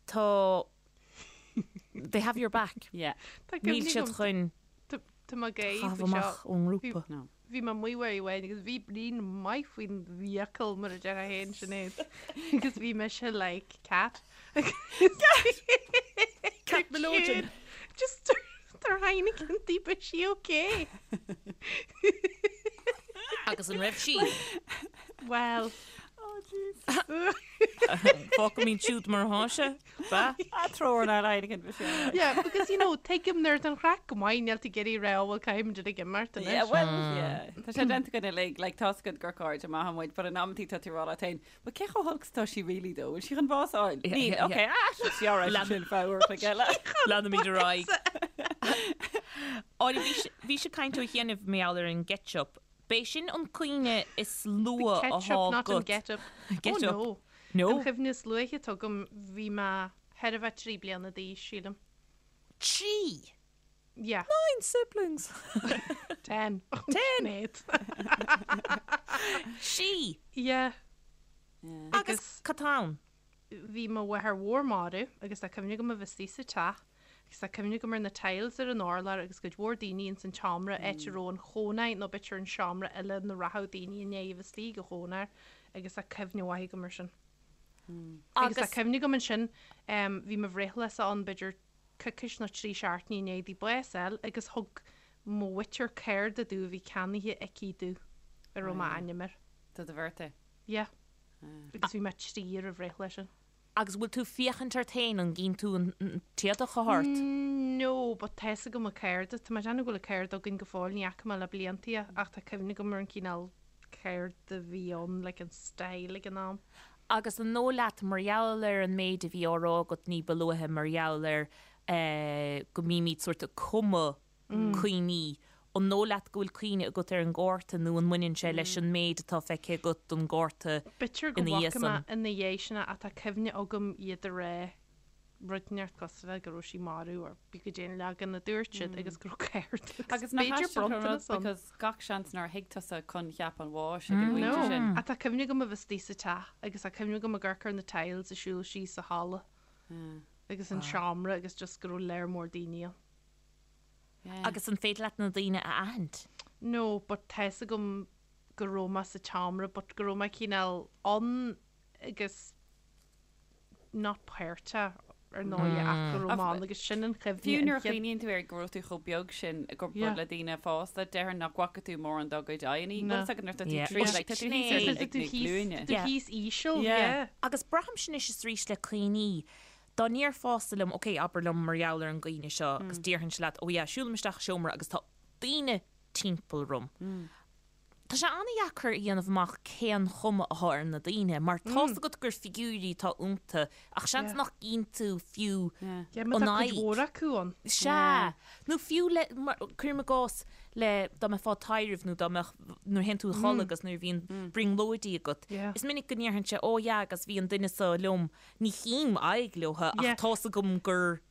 tá, they have your back. Yeah. Tá Níl cuimhne siad agam, chun tá mé ag gáire caitheamh faoi seo. amach ón ngrúpa. No. Bhí mé amuigh uair amháin agus bhí braon maith faoin bhfiacail mar a déarfá féin Sinéad agus bhí mise like cat. Cat Melodian. Just tar Heineken di but she okay. Agus an raibh sí? Well, Oh, jeez. Fágfaimid siúd mar atá sé. Ba? A treoir ná Heineken bhí sé. yeah, because you know, tuigim nuair atá an chraic go maith níl tú ag iarraidh rá bhfuil caithfimid ag imeacht anois. Yeah, well, yeah. Tá sé déanta againn uilig, like, tá's agat gur cairde maithe muid, but in amantaí tá tú ag rá leat féin, but cé chomh holc is atá sí really though? Bhfuil sí chun bás a fháil? Yeah, Níl, yeah, okay, ah, she's sí alright, Lean- sin fabhar chuig eile. Leanaimid ar aghaidh. Áine, bhí sé- bhí sé caint ó chianaibh mar gheall ar an gcetchup. B'é sin an cuimhne is luath The atá ketchup, not an agat. get up. Get oh, up. no. No. An chuimhne is luaithe atá agam, bhí mé thar a bheith 3 bliana d'aois, sílim. 3? Yeah. 9 siblings. 10. 10. 8. Sí. Yeah. Agus cad tá ann? Bhí mo mháthair mhór marbh agus tá cuimhne agam a bheith istigh sa teach agus tá cuimhne agam ar na tiles ar an urlár agus cuid mhór daoine ins an tseomra, áit a raibh an chónair nó b'fhéidir an seomra eile ina rachadh daoine i ndiaidh a bheith istigh ag an chónair agus tá cuimhne mhaith agam ar sin. Agus tá cuimhne agam ansin, bhí mo bhreithlá-sa ann b'fhéidir coicís nó 3 seachtainí i ndiaidh di bás a fháil agus thug mo mhuintir cárta domh a bhí ceannaithe aici domh a raibh m'ainm air. Do do birthday? Yeah. Agus bhí mé 3 ar an bhreithlá sin. Agus bhfuil tú féachaint ort féin, an gcíonn tú an t-éadach atá ort? No, but tá fhios agam an cárta. Tá mé ag déanamh go bhfuil an cárta againn go fóill, ní fhaca mé le blianta é, ach tá cuimhne agam ar an cineál cárta a bhí ann, like an style ag an am. Agus an dóigh leat, mar gheall ar an méid a bhí á rá agat ní ba luaithe, mar gheall ar go mbímid sórt ag cumadh cuimhní, an dóigh leat go bhfuil cuimhne agat ar an gcárta nó an mbaineann sé leis an méid atá feicthe agat don gcárta B'fhéidir go ina dhiaidh bhfaca mé san? ina dhiaidh sin é ach tá cuimhne agam iad a rá rud inteacht cosúil le go raibh sí marbh or pé goidé an leagan a dúirt siad agus go raibh cárta Agus agus nach b'fhéidir aisteach an rud bronntanas ann. because gach seans nár thuig tusa coincheap an bháis ag an No, bpointe sin. ach tá cuimhne agam a bheith istigh sa teach agus tá cuimhne agam ag amharc ar na tiles ag siúl síos sa halla agus an seomra agus just go raibh léar mór daoine ann. Agus an féidir leat na daoine a aithint? No, but tá fhios agam go raibh mé sa tseomra but go raibh mé cineál ann agus not páirteach ar ndóigh ach go raibh mé ann agus sin an chuimhne. Fiú an nuair a chéad- chuimhníonn tú air go raibh tú chomh beag sin i gcomparáid Yeah. le daoine fásta, déarfainn nach bhfaca tú mórán dá gcuid aghaidheanna. No. Bhfuil fhios agat nuair atá tú Yeah. trí, Well, like, tá tú sin thíos é. ar Tá ag tú na thíos- glúine. tá tú Yeah. thíos íseal, Yeah. yeah. Agus braithimse anois is arís le cuimhní, dá ndéarfása liom, ok, abair liom mar gheall ar an gcuimhne seo agus déarfainnse leat, oh yeah, siúlaim isteach i seomra agus tá daoine timpeall orm. Tá sé an-dheacair a dhéanamh amach cén chuma atá ar na daoine mar tá's agat gur figiúirí atá iontu ach seans nach gcíonn tú fiú Yeah, má an tá cuid aghaidh. mhór acu ann. Sea. Nó fiú le, mar, cuirim i gcás, le, dá mbeifeá ag taibhreamh nó dá mbeadh, nuair a théann tú a chodladh agus nuair a bhíonn brionglóidí agat, is minic go ndéarfainnse, oh yeah agus bhí an duine seo liom, ní chím aghaidh leo ach tá's agam gur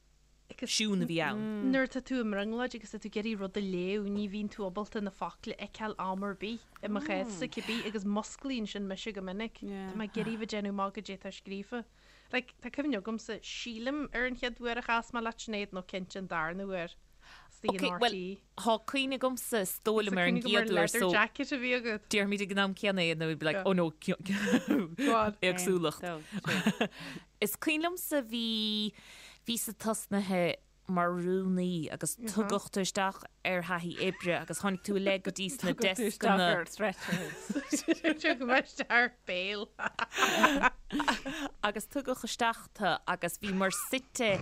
Siún a bhí ann. Nuair atá tú i mbrionglóid agus tá tú ag iarraidh rud a léamh, ní bhíonn tú ábalta na focla a fheiceáil am ar bith, i mo chás-sa cibé, agus musclaíonn sin mise go minic. Tá mé ag iarraidh bheith ag déanamh amach goidé atá scríofa. Like, tá cuimhne agamsa, sílim, ar an chéad uair a chas mé leat, Sinéad, nó cinnte an darna huair. Istigh Ok, in well, RTÉ. Tá cuimhne agamsa is dóigh liom ar an Cuimhne agam ar gcéad uair leather so jacket a bhí agat. déarfaimid ag an am céanna é and then we'd be like Yeah. oh no Go on. éagsúlacht. Aon, dó, trí. Is cuimhin liomsa bhí bhíos-sa tosnaithe mar rúnaí agus tugadh tú isteach ar thaithí oibre agus tháinig tú i leith go dtí sna Tugadh tú isteach descanna. ar stretcher. Tugadh mé isteach ar bail. Agus tugadh isteach tú agus bhíomar suite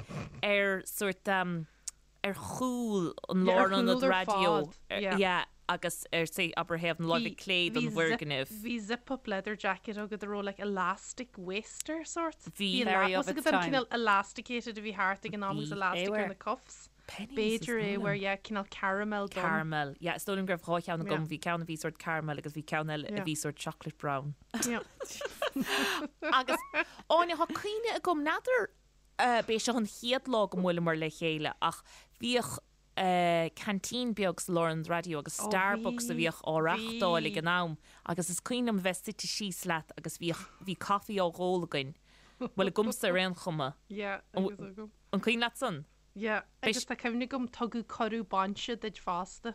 ar sórt ar chúl an Yeah, ar lárionad chúl ar raidió. fad, yeah. Yeah, agus ar say abair thaobh na láimhe clé den bhfoirgneamh. Bhí zip up leather jacket agat a raibh like elastic waist ar sort. Bhí. Very of Was its agat an time. cineál elasticated a bhí thart ag an am agus Bhí. elastic ar Éabhair. na cuffs. Penneys, B'fhéidir is é dóigh where liom. yeah cineál caramel donn. Caramel. Yeah, is dóigh liom go raibh dhá cheann agam. Yeah. Bhí ceann a bhí sort caramel agus bhí ceann eile a Yeah. bhí sort chocolate brown. Yeah. Agus Áine, tá cuimhne agam, n'fheadar b'é seo an chéad lá go mbuaileamar le chéile ach bhíodh canteen beag sa lárionad raidió agus Starbucks a bhíodh á reáchtáil ag an am agus is cuimhin liom a bheith suite síos leat agus bhíodh, bhí caife á dh'ól againn, bhuel agamsa ar aon chuma. Yeah, agus agam. An cuimhin leat san? Yeah, agus tá cuimhne agam tugadh cuireadh bainse duit fosta.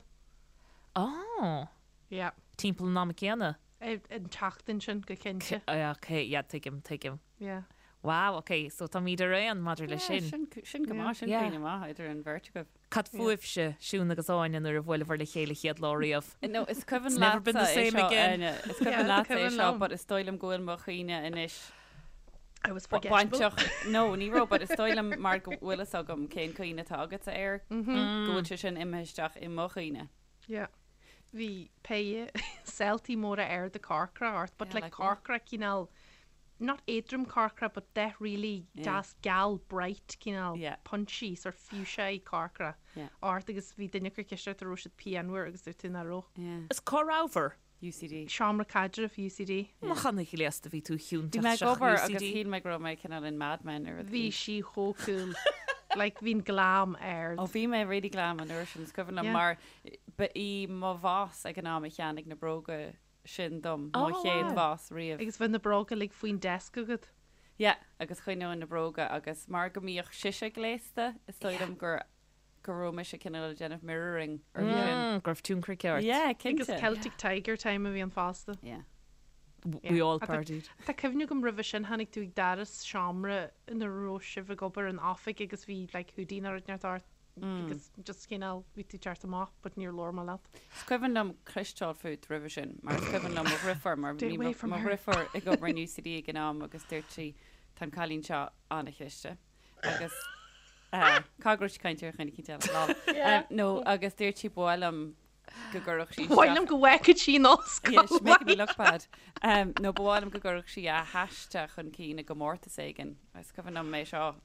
Oh. Yeah. Timpeall an ama céanna? An tseachtain sin, go cinnte. Ok, yeah, tuigim, tuigim. Yeah. Wow, ok, so táimid ar aon maidir leis sin. Sin, sin go maith, sin Yeah. cuimhne maith idir an bheirt agaibh. Cad fúibhse, Siún agus Áine, nuair a bhuaileabhair le chéile chéad lá riamh? No, is cuimhin It's never been the leatsa é same seo, again. Áine. Is Yeah, cuimhin is leatsa é cuimhin seo, liom. but is dóigh liom go bhfuil mo chuimhne anois I was forgettable. bainteach. No, ní raibh, but is dóigh liom mar go bhfuil fhios agam cén cuimhne atá agatsa air, go bhfuil sé sin imithe isteach i mo chuimhne. Yeah. Bhí péire seiltí móra arda corcra ort, but Yeah, like like what? corcra cineál not éadrom corcra but dath really deas geal bright cineál Yeah. punchy sort fuchsia corcra Yeah. ort agus bhí duine ag cur ceist ort an raibh siad pianmhar agus dúirt tú nach raibh. Yeah. Is cá rabhabhair? UCD. Seomra caidrimh UCD. Nach an-ghléasta bhí tú Bhí chiúnteach mé ag isteach obair agus UCD. shíl mé go raibh mé cineál in Mad Men ar rud Bhí éigin. sí chomh cool. Like bhí'n glam ard. Ó bhí mé really glam an uair sin, is cuimhin liom Yeah. mar ba í mo bhoss ag an am a cheannaigh na bróga sin dom, mo Oh, chéad wow. bhoss riamh. Agus bhí na bróga uilig faoin desk agat. Yeah, agus choinneoinn na bróga agus mar go mbíodh sise gléasta, is dóigh liom gur go raibh mise cineál ag déanamh mirroring uirthi sin. Mm, go raibh tionchar aici ort. Yeah, Agus cinnte. Celtic Tiger time a bhí ann fosta. Yeah. We all Tá- partied. Tá cuimhne agam roimhe sin tháinig tú ag doras seomra ina raibh sibh ag obair in oifig agus bhí like hoodie nó rud inteacht ort agus just cineál bhí tú teacht amach but níor labhair mé leat. Is cuimhin liom cloisteáil fút roimhe sin, mar is cuimhin liom mo dheirfiúr, mar Stay bhí away mo from mo her. dheirfiúr ag obair in UCD ag an am agus dúirt sí tá an cailín seo an-chliste agus eh, cá go raibh sí ag caint ar dhuine eicínt eile, lol. Eh, nó agus dúirt sí ba mhaith liom go gcuirfeadh sí Ba mhaith liom go bhfeicfeadh sí an ollscoil. Yeah, she's making me look bad. Um, nó ba mhaith liom go gcuirfeadh sí a haiste chun cinn i gcomórtas éigin. Is cuimhin liom é seo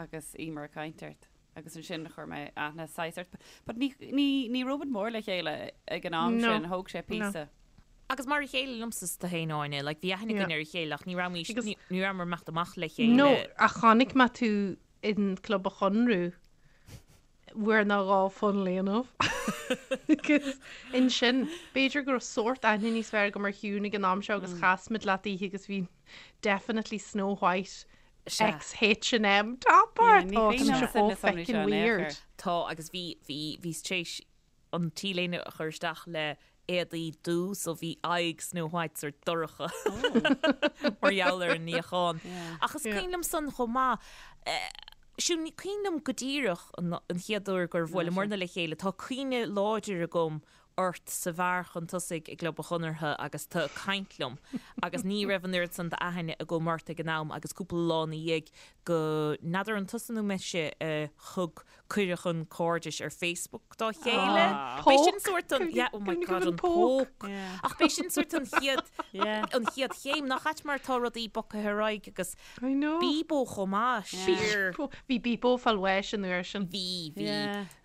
agus í mar ag caint ort. Agus ansin chuir mé aithne saghas ort. But ní, ní, ní raibh muid mór le chéile ag an am No. sin, thóg sé píosa. Agus mar a chéile liomsa is tú féin Áine, like bhí aithne Yeah. againn ar a chéile ach ní raibh Agus- ní ní rabhamar ag imeacht amach le chéile. No, ach chonaic mé tú in Club an Chonradh bhfuair ná dhá fun léanamh. Agus ansin, b'fhéidir go raibh sórt aithne níos fearr agam ar Shiún ag an am seo agus chas muid leat oíche agus bhí definitely Snow White Sea. X H&M top ort. ní Ó, cuimhin tá sé liomsa chomh na sonraí feckin' seo in aon weird. chor. Tá agus bhí bhí bhíos tar éis an t-léine a chur isteach le éadaí dubh so bhí aghaidh Snow White sort dorcha mar gheall ar an níochán. Ach is cuimhin liom san chomh maith eh, Siún ní cuimhin liom go díreach an an chéad uair gur bhuaileamarna le chéile, tá cuimhne láidir agam ort sa bheár chun tosaigh i gClub an Chonartha agus tú ag caint liom agus ní raibh an oiread san d'aithne agam ort ag an am agus cúpla lá ina dhiaidh go n'fheadar an tusa nó mise a thug cuireadh chun cairdis ar Facebook dá chéile. B'é sin sórt an yeah, oh my God, an poke. Ach b'é sin sórt an chéad an chéad chéim nach ait mar tá rudaí bogtha ar aghaidh agus I know. Bebo chomh maith siar. Bhí Bebo fáil bháis an uair sin. Bhí, bhí.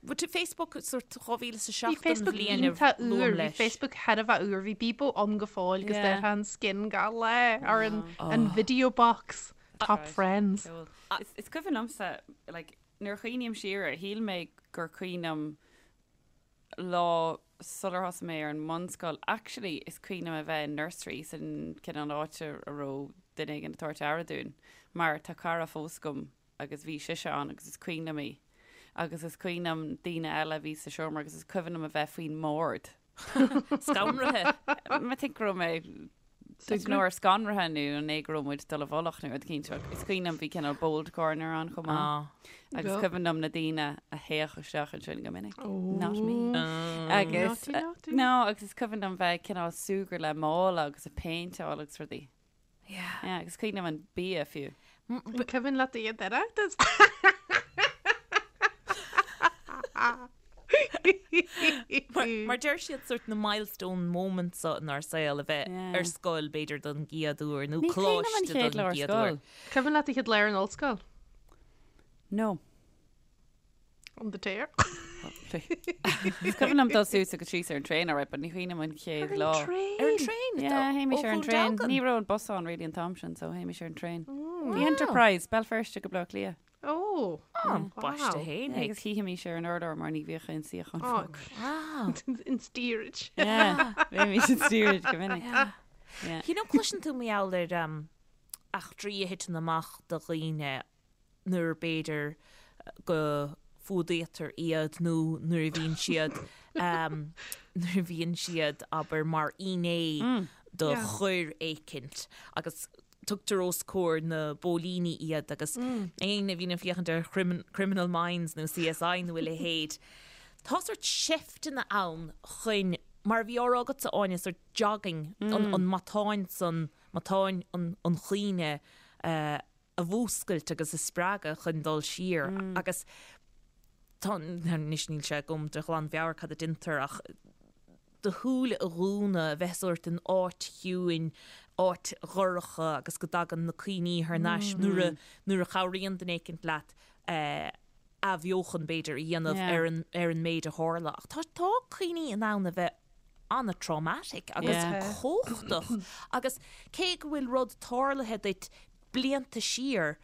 But Facebook sórt 2007 Bhí an Facebook bhliain a iontach luaim úr, bhí leis. Facebook thar a bheith úr, bhí Bebo ann go fóill agus Yeah. déarfá an skin gach lá ar an an video box, top friends. Cool. Is, is cuimhin liomsa, like, nuair a chuimhním siar air, shíl mé gur cuimhin liom lá sular thosaigh mé ar an mbunscoil. Actually, is cuimhin liom a bheith in nursery san cineál áit a raibh duine éigin ag tabhairt aire dúinn, mar tá cara fós agam agus bhí sise ann agus is cuimhin liom í. Agus is cuimhin liom daoine eile a bhí sa seomra agus is cuimhin liom a bheith faoin mbord. Scanraithe. I think go raibh mé nuair scanraithe nó an é go raibh muid dul i bhfolach nó rud éicint ach is cuimhin liom bhí cineál bold corner ann chomh maith. Agus cuimhin liom na daoine a théadh isteach ansin go minic. Not me. Agus no agus is cuimhin liom bheith cineál súgradh le mála agus ag péinteáil agus rudaí. Yeah. Yeah, agus cuimhin liom an bia fiú. An cuimhin leat do chéad Oireachtas? Mar deir siad sort na milestone moments so inár saol a bheith Yeah. ar scoil b'fhéidir don gcéad uair nó Ní cuimhin liom an coláiste chéad don lá ar gcéad uair. scoil. Cuimhin leat do chéad lá ar an ollscoil? No. On the tear. Is cuimhin liom dul suas agus síos ar an traein alright, but ní cuimhin liom an chéad lá. Ar an traein? Yeah, théimis ar an traein. Ní raibh an bus ann really an t-am sin, so théimis ar an traein. The Enterprise, Béal Feirste go Baile Átha Cliath. Oh. Baiste fhéin. Agus shuífimis ar an urlár mar ní bhíodh aon suíochán fágtha. Wow. In steerage. Yeah, bhímis in steerage go minic. Yeah. You know, cloiseann tú mar gheall ar um, eachtraí a thiteann amach do dhaoine nuair b'fhéidir go fuadaítear iad nó nuair a bhíonn siad nuair a bhíonn siad, abair, mar fhinné do choir éicint agus tugtar os comhair na bpóilíní iad agus éinne a bhíonn ag féachaint ar Criminal Minds nó CSI nó a leithéid, tá sórt seifteanna ann chun, mar a bhí á rá agatsa Áine, sórt jogging, an matán san, matán an chuimhne a a mhúscailt agus a spreagadh chun dul siar agus tá, anois níl sé agam de ghlanmheabhair cad a deintear ach do shúile a dhúnadh, a bheith sórt in áit chiúin, áit dhorcha agus go dtagann na cuimhní thar n-ais nuair a, nuair a chabhraíonn duine éicint leat athbheochan b'fhéidir a dhéanamh ar an, ar an méid a tharla. Ach tá, tá cuimhní in ann a bheith an-traumatic agus cumhachtach agus cé go bhfuil rud tarlaithe duit blianta siar,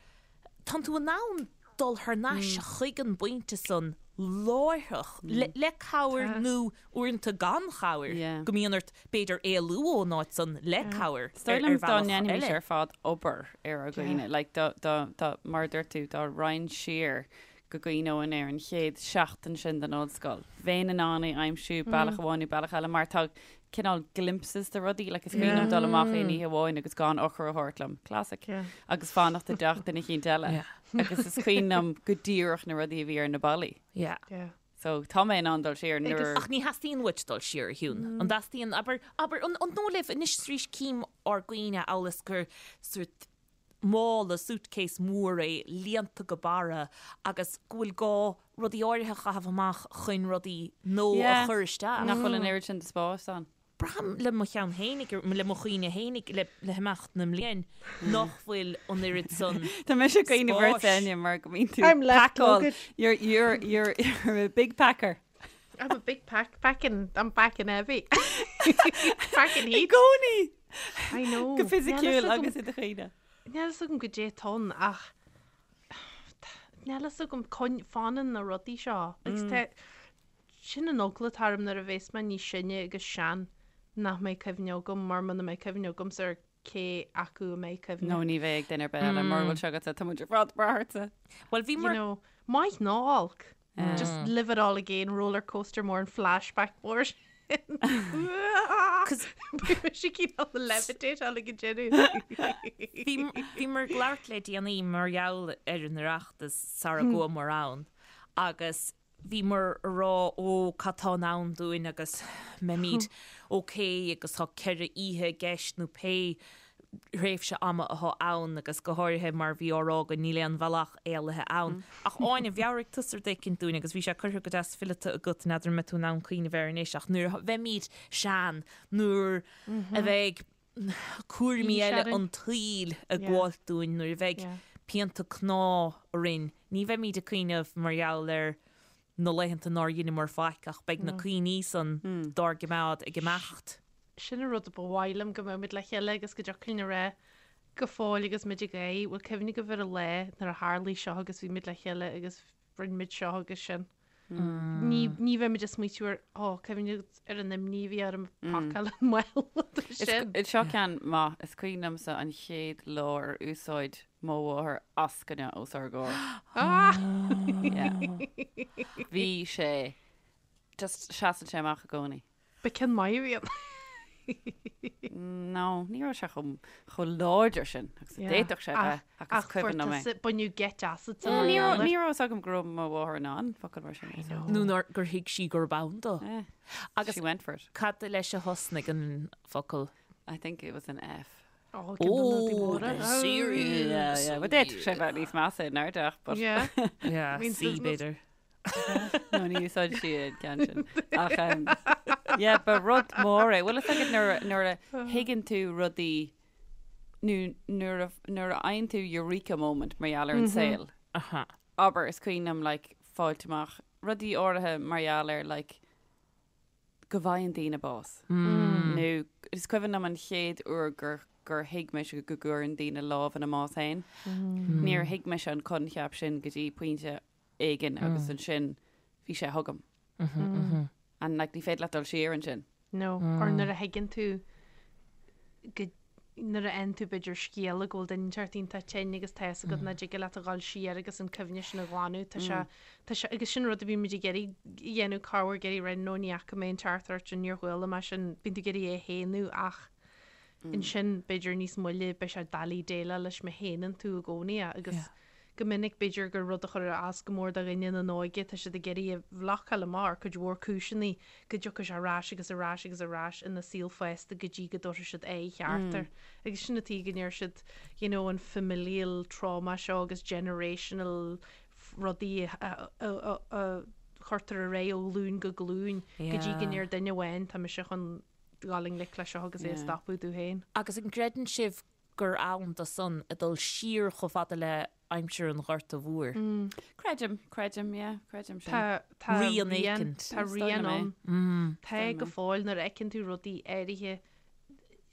tánn tú in ann dul thar n-ais chuig an bpointe san láithreach, le cabhair nó uaireanta gan chabhair, go mbíonn ort b'fhéidir éalú ón áit san le cabhair Is dóigh ar liom dá bhealach ndéanfaimis eile. ar fad obair ar ár gcuimhne, like dá, dá, dá, mar a dúirt tú, dá raghainn siar go gcuimhneoinn ar an chéad seachtain sin den ollscoil, bheinn in ann é a aimsiú bealach amháin nó bealach eile mar tá cineál glimpses de rudaí, like is cuimhin liom dul amach aon oíche amháin agus gan eochair a thabhairt liom, classic, agus fanacht i dteach duine eicínt eile agus is cuimhin liom go díreach na rudaí a bhí ar na ballaí. Yeah. So tá mé in ann dul siar nuair. Ach ní theastaíonn uait dul siar, a Shiún. An dteastaíonn, abair, abair, an dóigh libh anois is arís cím ár gcuimhne amhail is gur sórt mála, suitcase mór é, líonta go barra agus go bhfuil gá rudaí áirithe a chaitheamh amach chun rudaí nua a chur isteach. Nach bhfuil an oiread sin de spás ann. Braithim le mo cheann fhéinig, le mo chuimhne fhéinig, le himeacht na mblian, nach bhfuil an oiread san Tá mise ag cuimhneamh ort spáis. Áine mar go mbíonn tú I'm left pacáil. luggage. You're, you're, you're, you're a big packer. I'm a big pack, packing, I'm packing heavy. Packing I heat. gcónaí! I know. Go fisiciúil agus i do chuimhne. Níl fhios agam goidé atá ann ach níl fhios agam fanann na rudaí seo. Agus tá sin an eagla atá orm nuair a bhéas mé níos sine agus sean nach mbeidh cuimhne agam mar muna mbeidh cuimhne agamsa ar cé acu a mbeidh cuimhne. No ní bheidh ag duine ar bith eile mura bhfuil sé agatsa tá muid ar fad ag brath ortsa. Bhuel bhí You know, maith ná olc. Just live it all again, roller coaster mór an flashback mór sin. Beidh mise cineál levitate all ag an deireadh. Bhíomar ag labhairt le déanaí mar gheall ar an Oireachtas sara gcuamar ann agus bhíomar a rá ó cad tá in ann dúinn agus mbeimid ok agus tá 4 oíche i gceist nó pé thréimhse ama atá ann agus go háirithe mar bhí á rá againn níl aon bhealach éalaithe ann. Ach Áine, mheabhraigh tusa rud éicint dúinn agus bhí sé curtha go deas fileata agat, n'fheadar an mbeidh tú in ann cuimhneamh air anois ach nuair a bheimid sean, nuair a bheidh cúraimí eile an tsaoil ag gabháilt dúinn, nuair a bheidh pianta cná orainn, ní bheimid ag cuimhneamh mar gheall ar na laethanta nár dheineamar faic ach beidh na cuimhní san dár gcimeád ag imeacht. Sin an rud a ba mhaith liom, go mbeadh muid le chéile agus go dtiocfadh linn a rá go fóill agus muid ag gáire, bhfuil cuimhne agaibh ar an lá nuair a tharlaigh seo agus bhí muid le chéile agus rinne muid seo agus sin. Ní, ní bheidh muid ag smaoitiú ar, ó, cuimhne agat ar an imní a bhí orm ag pacáil an mála sin. Is seo ceann maith, is cuimhin liomsa an chéad lá ar úsáid. mo mháthair eascaine os ár gcomhair. Yeah. Bhí sé just seasann sé amach i gcónaí. Ba ceann maith a bhí ann. No, ní raibh sé chomh chomh láidir sin agus a d'fhéadfadh sé bheith ach is cuimhin liom é. Baineadh geit asat Yeah, ní raibh ní raibh fhios agam go raibh mo mháthair in ann focal mar sin a úsáid. Nó nár gur thuig sí gurb ann dó. Yeah. Agus She went for it. cad leis a thosnaigh an focal? I think it was an F. Oh, ceann de na rudaí Oh, móra. serious. Yeah, yeah. But d'fhéadfadh sé bheith níos measa in airdeach, but Yeah. Yeah, Means C business. b'fhéidir. No, ní úsáid sí an ceann sin. Ach, um, yeah, ba rud mór é. Bhfuil fhios agat nuair a- nuair a thuigeann tú rudaí nó nuair a nuair a fhaigheann tú eureka moment mar gheall ar an saol. Aha. Abair, is cuimhin liom like, fáilt amach rudaí áirithe mar gheall ar like, go bhfaigheann daoine bás. Nó is cuimhin liom an chéad uair gur gur thuig mise go gcuireann daoine lámh ina mbás féin. Níor thuig mise an coincheap sin go dtí pointe éigin agus ansin bhí sé chugam. And like ní féidir leat dul siar ansin. No, or nuair a thuigeann tú go nuair a fhaigheann tú b'fhéidir scéala go bhfuil duine inteacht iontach tinn agus tá fhios agat nach dtig leat a dhul siar agus an cuimhne sin a ghlanadh, tá sé, tá sé, agus sin rud a bhíonn muid ag iarraidh a dhéanamh, corruair ag iarraidh rá no ní fhaca mé an teachtaireacht sin, níor chuala mé sin, bíonn tú ag iarraidh é a shéanadh ach ansin b'fhéidir níos moille beidh sé doiligh déileáil leis má shéanann tú i gcónaí é agus Go minic, b'fhéidir gur rud a chuir as go mór do dhuine ina n-óige, tá siad ag iarraidh a bhlocáil amach ar cuid mhór cúiseanna go dtiocfaidh sé ar ais agus ar ais agus ar ais ina saol fásta go dtí go dtabharfaidh siad aghaidh cheart air. Agus sin an tuige go ndeir siad you know an familial trauma seo agus generational rudaí a chuirtear ar aghaidh ó ghlúin go glúin go dtí go ndeir duine amháin tá mise chun dul i ngleic leis seo agus é a stopadh domh féin. Agus an gcreideann sibh gur ann do san ag dul siar chomh fada le aimsir an Ghorta Mhóir. Creidim, creidim, yeah, creidim sin. Tá, tá Rian rian, éicint. tá Is dóigh rian liom é. ann. Tá go fóill nuair a fheiceann tú rudaí áirithe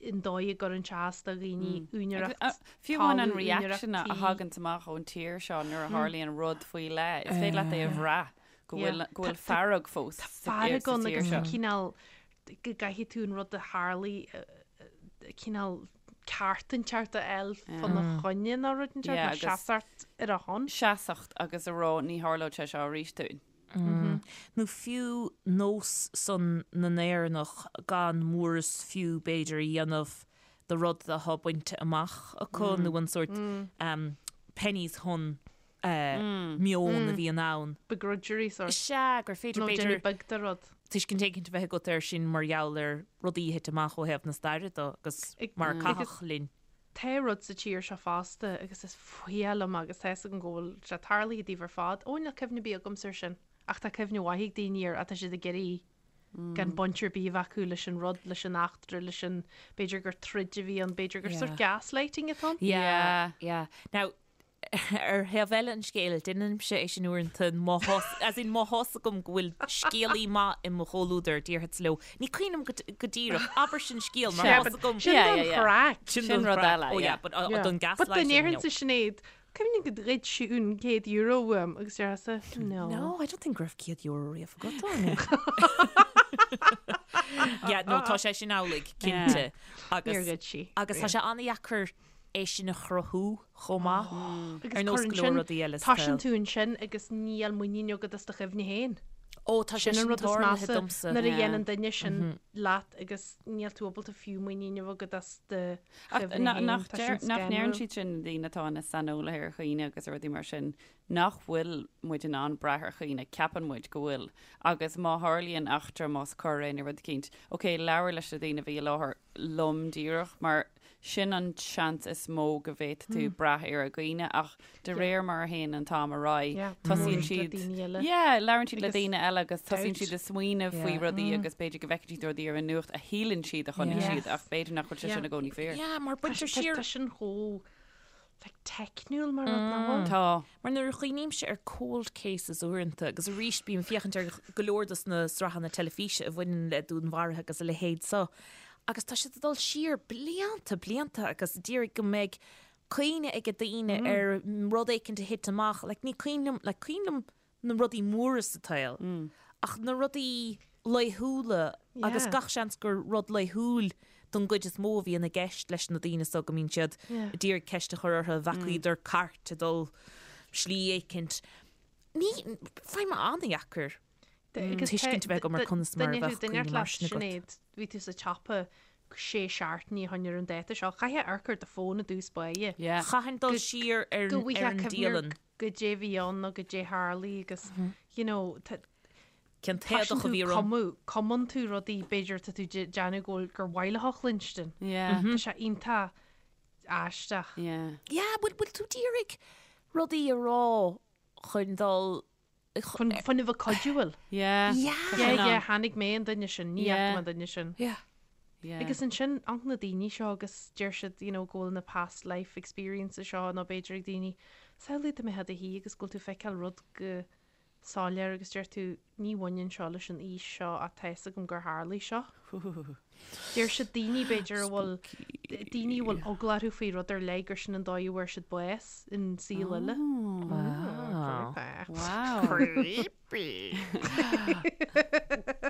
an dóigh a gcuireann sé as do dhaoine, úinéireacht Agus, Fiú amháin an talamh, úinéireacht reaction a tí. thaganns amach ón tír seo nuair a tharlaíonn rud faoi leith, is féidir leat é a bhrath go Yeah. bhfuil, go bhfuil Tá- tá- fearg fós Tá sa fearg sa ann tír agus tá seo. cineál go gcaithfidh tú an rud a tharlaigh cineál ceart inteacht a fháil fána choinne nó rud inteacht, nó seasacht ar a shon. Seasacht agus a rá ní tharlóidh sé seo arís dúinn. Nó fiú nós san na nÉireannach gan mór is fiú b'fhéidir a dhéanamh de rud atá bainte amach acu nó an sórt pennies hun meon a bhíonn ann. Begrudgery sort. Sea, gur féidir, Nó b'fhéidir, déanamh beag de rud. tuiscint éicint a bheith agat air sin mar gheall ar rudaí a thit amach ó thaobh na staire de agus mar a caitheadh linn. Tá rud sa tír seo fosta agus is fuath liom agus tá fhios agam go bhfuil sé tarlaithe daoibh ar fad. Ó, níl cuimhne ar bith agamsa air sin. Ach tá cuimhne mhaith ag daoine air ach tá siad ag iarraidh gan baint ar bith a bheith acu leis an rud, leis an eachtra, leis an, b'fhéidir gur troid a bhí ann, b'fhéidir gur sort gaslighting atá ann. Yeah, yeah. Now, Ar thaobh eile an scéil, déanaimse é sin uaireanta má thá, as in má thá's agam go bhfuil scéalaí maith i mo chomhluadar, déarfadsa leo, ní cuimhin liom go díreach, abair sin scéal mar thá's agam. Sin don chraic. Sin Sin rud eile, Oh yeah, yeah. but uh, don But dá gaslighting, no. ndéarfainnse Sinéad, cuimhin go ghoid sí an €100 uaim agus déarfása, no. No, I don't think go raibh €100 riamh agat, Áine. Yeah, no, tá sé sin amhlaidh, cinnte. Agus, Níor ghoid sí. agus tá sé an-dheacair é sin a chruthú chomh maith, Agus ar nós cuireann go leor sin, rudaí eile sa toiseann tsaol. tú ansin agus níl muinín agat as do chuimhne féin. Ó, tá sé Sin an sin rud is tarlaithe measa, domsa. nuair a Yeah. dhéanann duine sin leat agus níl tú ábalta fiú muinín a bheith agat as do Ach chuimhne na- féin. nach Tá deir- sin nach ndeireann scanrúil. siad sin na daoine atá ina saineolaithe ar chuimhne agus ar rudaí mar sin, nach bhfuil muid in ann brath ar chuimhne, ceapann muid go bhfuil. Agus má tharlaíonn eachtra, más coir é nó rud eicínt, ok, labhair leis na daoine a bhí i láthair lom díreach, mar sin an seans is mó go bhféadfaidh tú brath ar a gcuimhne ach de réir mar a théann an t-am ar aghaidh, tosaíonn siad, yeah, labhrann siad le daoine eile agus tosaíonn siad ag smaoineamh faoi rudaí agus b'fhéidir go bhfeiceann siad rudaí ar an nuacht a shíleann siad a chonaic siad ach b'fhéidir nach bhfuil sé sin i gcónaí fíor. Yeah, mar baintear siar. Tá sin chomh like teicniúil mar rud nach bhfuil? Tá. Mar nuair a chuimhnímse ar cold cases uaireanta, agus arís bím ag féachaint ar go leor dos na sraitheanna teilifíse a bhaineann le dúnmharuithe agus a leithéid so, agus tá siad ag dul siar blianta, blianta agus d'iarraidh go mbeidh cuimhne ag daoine ar rud éicint a thit amach, like ní cuimhin liom, like cuimhin liom na rudaí móra sa tsaol, ach na rudaí. laethúla agus gach seans gur rud laethúil don gcuid is mó a bhíonn i gceist leis na daoine so go mbíonn siad ag iarraidh ceist a chur orthu, bhfacaíodar cairt ag dul slí éicint. Ní, faighim an-dheacair tuiscint a bheith agam ar conas mar a bheadh cuimhne mar sin agat. Sinéad, bhí tú sa tsiopa sé seachtainí ó shoin ar an dáta seo. Chaithfeá amharc ar do fón i dtús báire. Chaithfinn dul siar ar an dialann. Goidé bhí ann nó goidé tharlaigh agus you know tá Cén t-éadach a bhí orm? Cumadh, cumann tú rudaí b'fhéidir tá tú déanamh go bhfuil gur mhaith leat a chluinstin. Yeah. Tá sé iontach aisteach. Yeah. Yeah, bhfuil bhfuil tú d'iarraidh rudaí a rá chun dul Chun chun a bheith cuidiúil. Yeah. Yeah. Tá Yeah, sin yeah, ann. chonaic mé an duine sin, ní fhaca Yeah. mé an duine sin. Yeah. Yeah. Agus ansin, amharc na daoine seo agus deir siad, you know, go bhfuil na past life experiences seo nó b'fhéidir ag daoine, samhlaigh dá mbeifeá i do shuí agus go bhfuil tú ag feiceáil rud go soiléir agus deir tú, ní bhaineann seo leis an fhís seo ach tá fhios agam gur tharlaigh seo. Deir siad daoine b'fhéidir a bhfuil, daoine a bhfuil eagla orthu faoi rud ar leith gur sin an dóigh a bhfuair siad bás in saol eile. Wow. Wow. Creepy.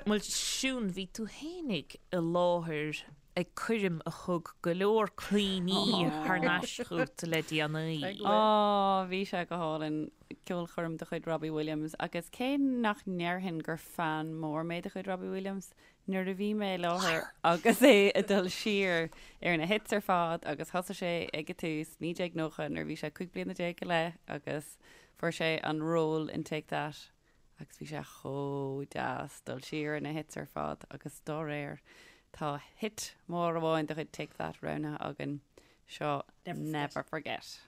Bhuel, Siún, bhí tú fhéinig i láthair ag coirm a thug go leor cuimhní thar n-ais chugat le déanaí. Ó, bhí sé go hálainn, ceolchoirm de chuid Robbie Williams agus cé nach ndéarfainn gur fan mór mé de chuid Robbie Williams, nuair a bhí mé i láthair agus é ag dul siar ar na hits ar fad agus thosaigh sé ag an tús, 1990, nuair a bhí sé 15 bliana go leith agus fuair sé an ról in Take That agus bhí sé chomh deas dul siar ar na hits ar fad agus dá réir tá hit mór amháin de chuid Take That roghnaithe againn, seo Never Forget.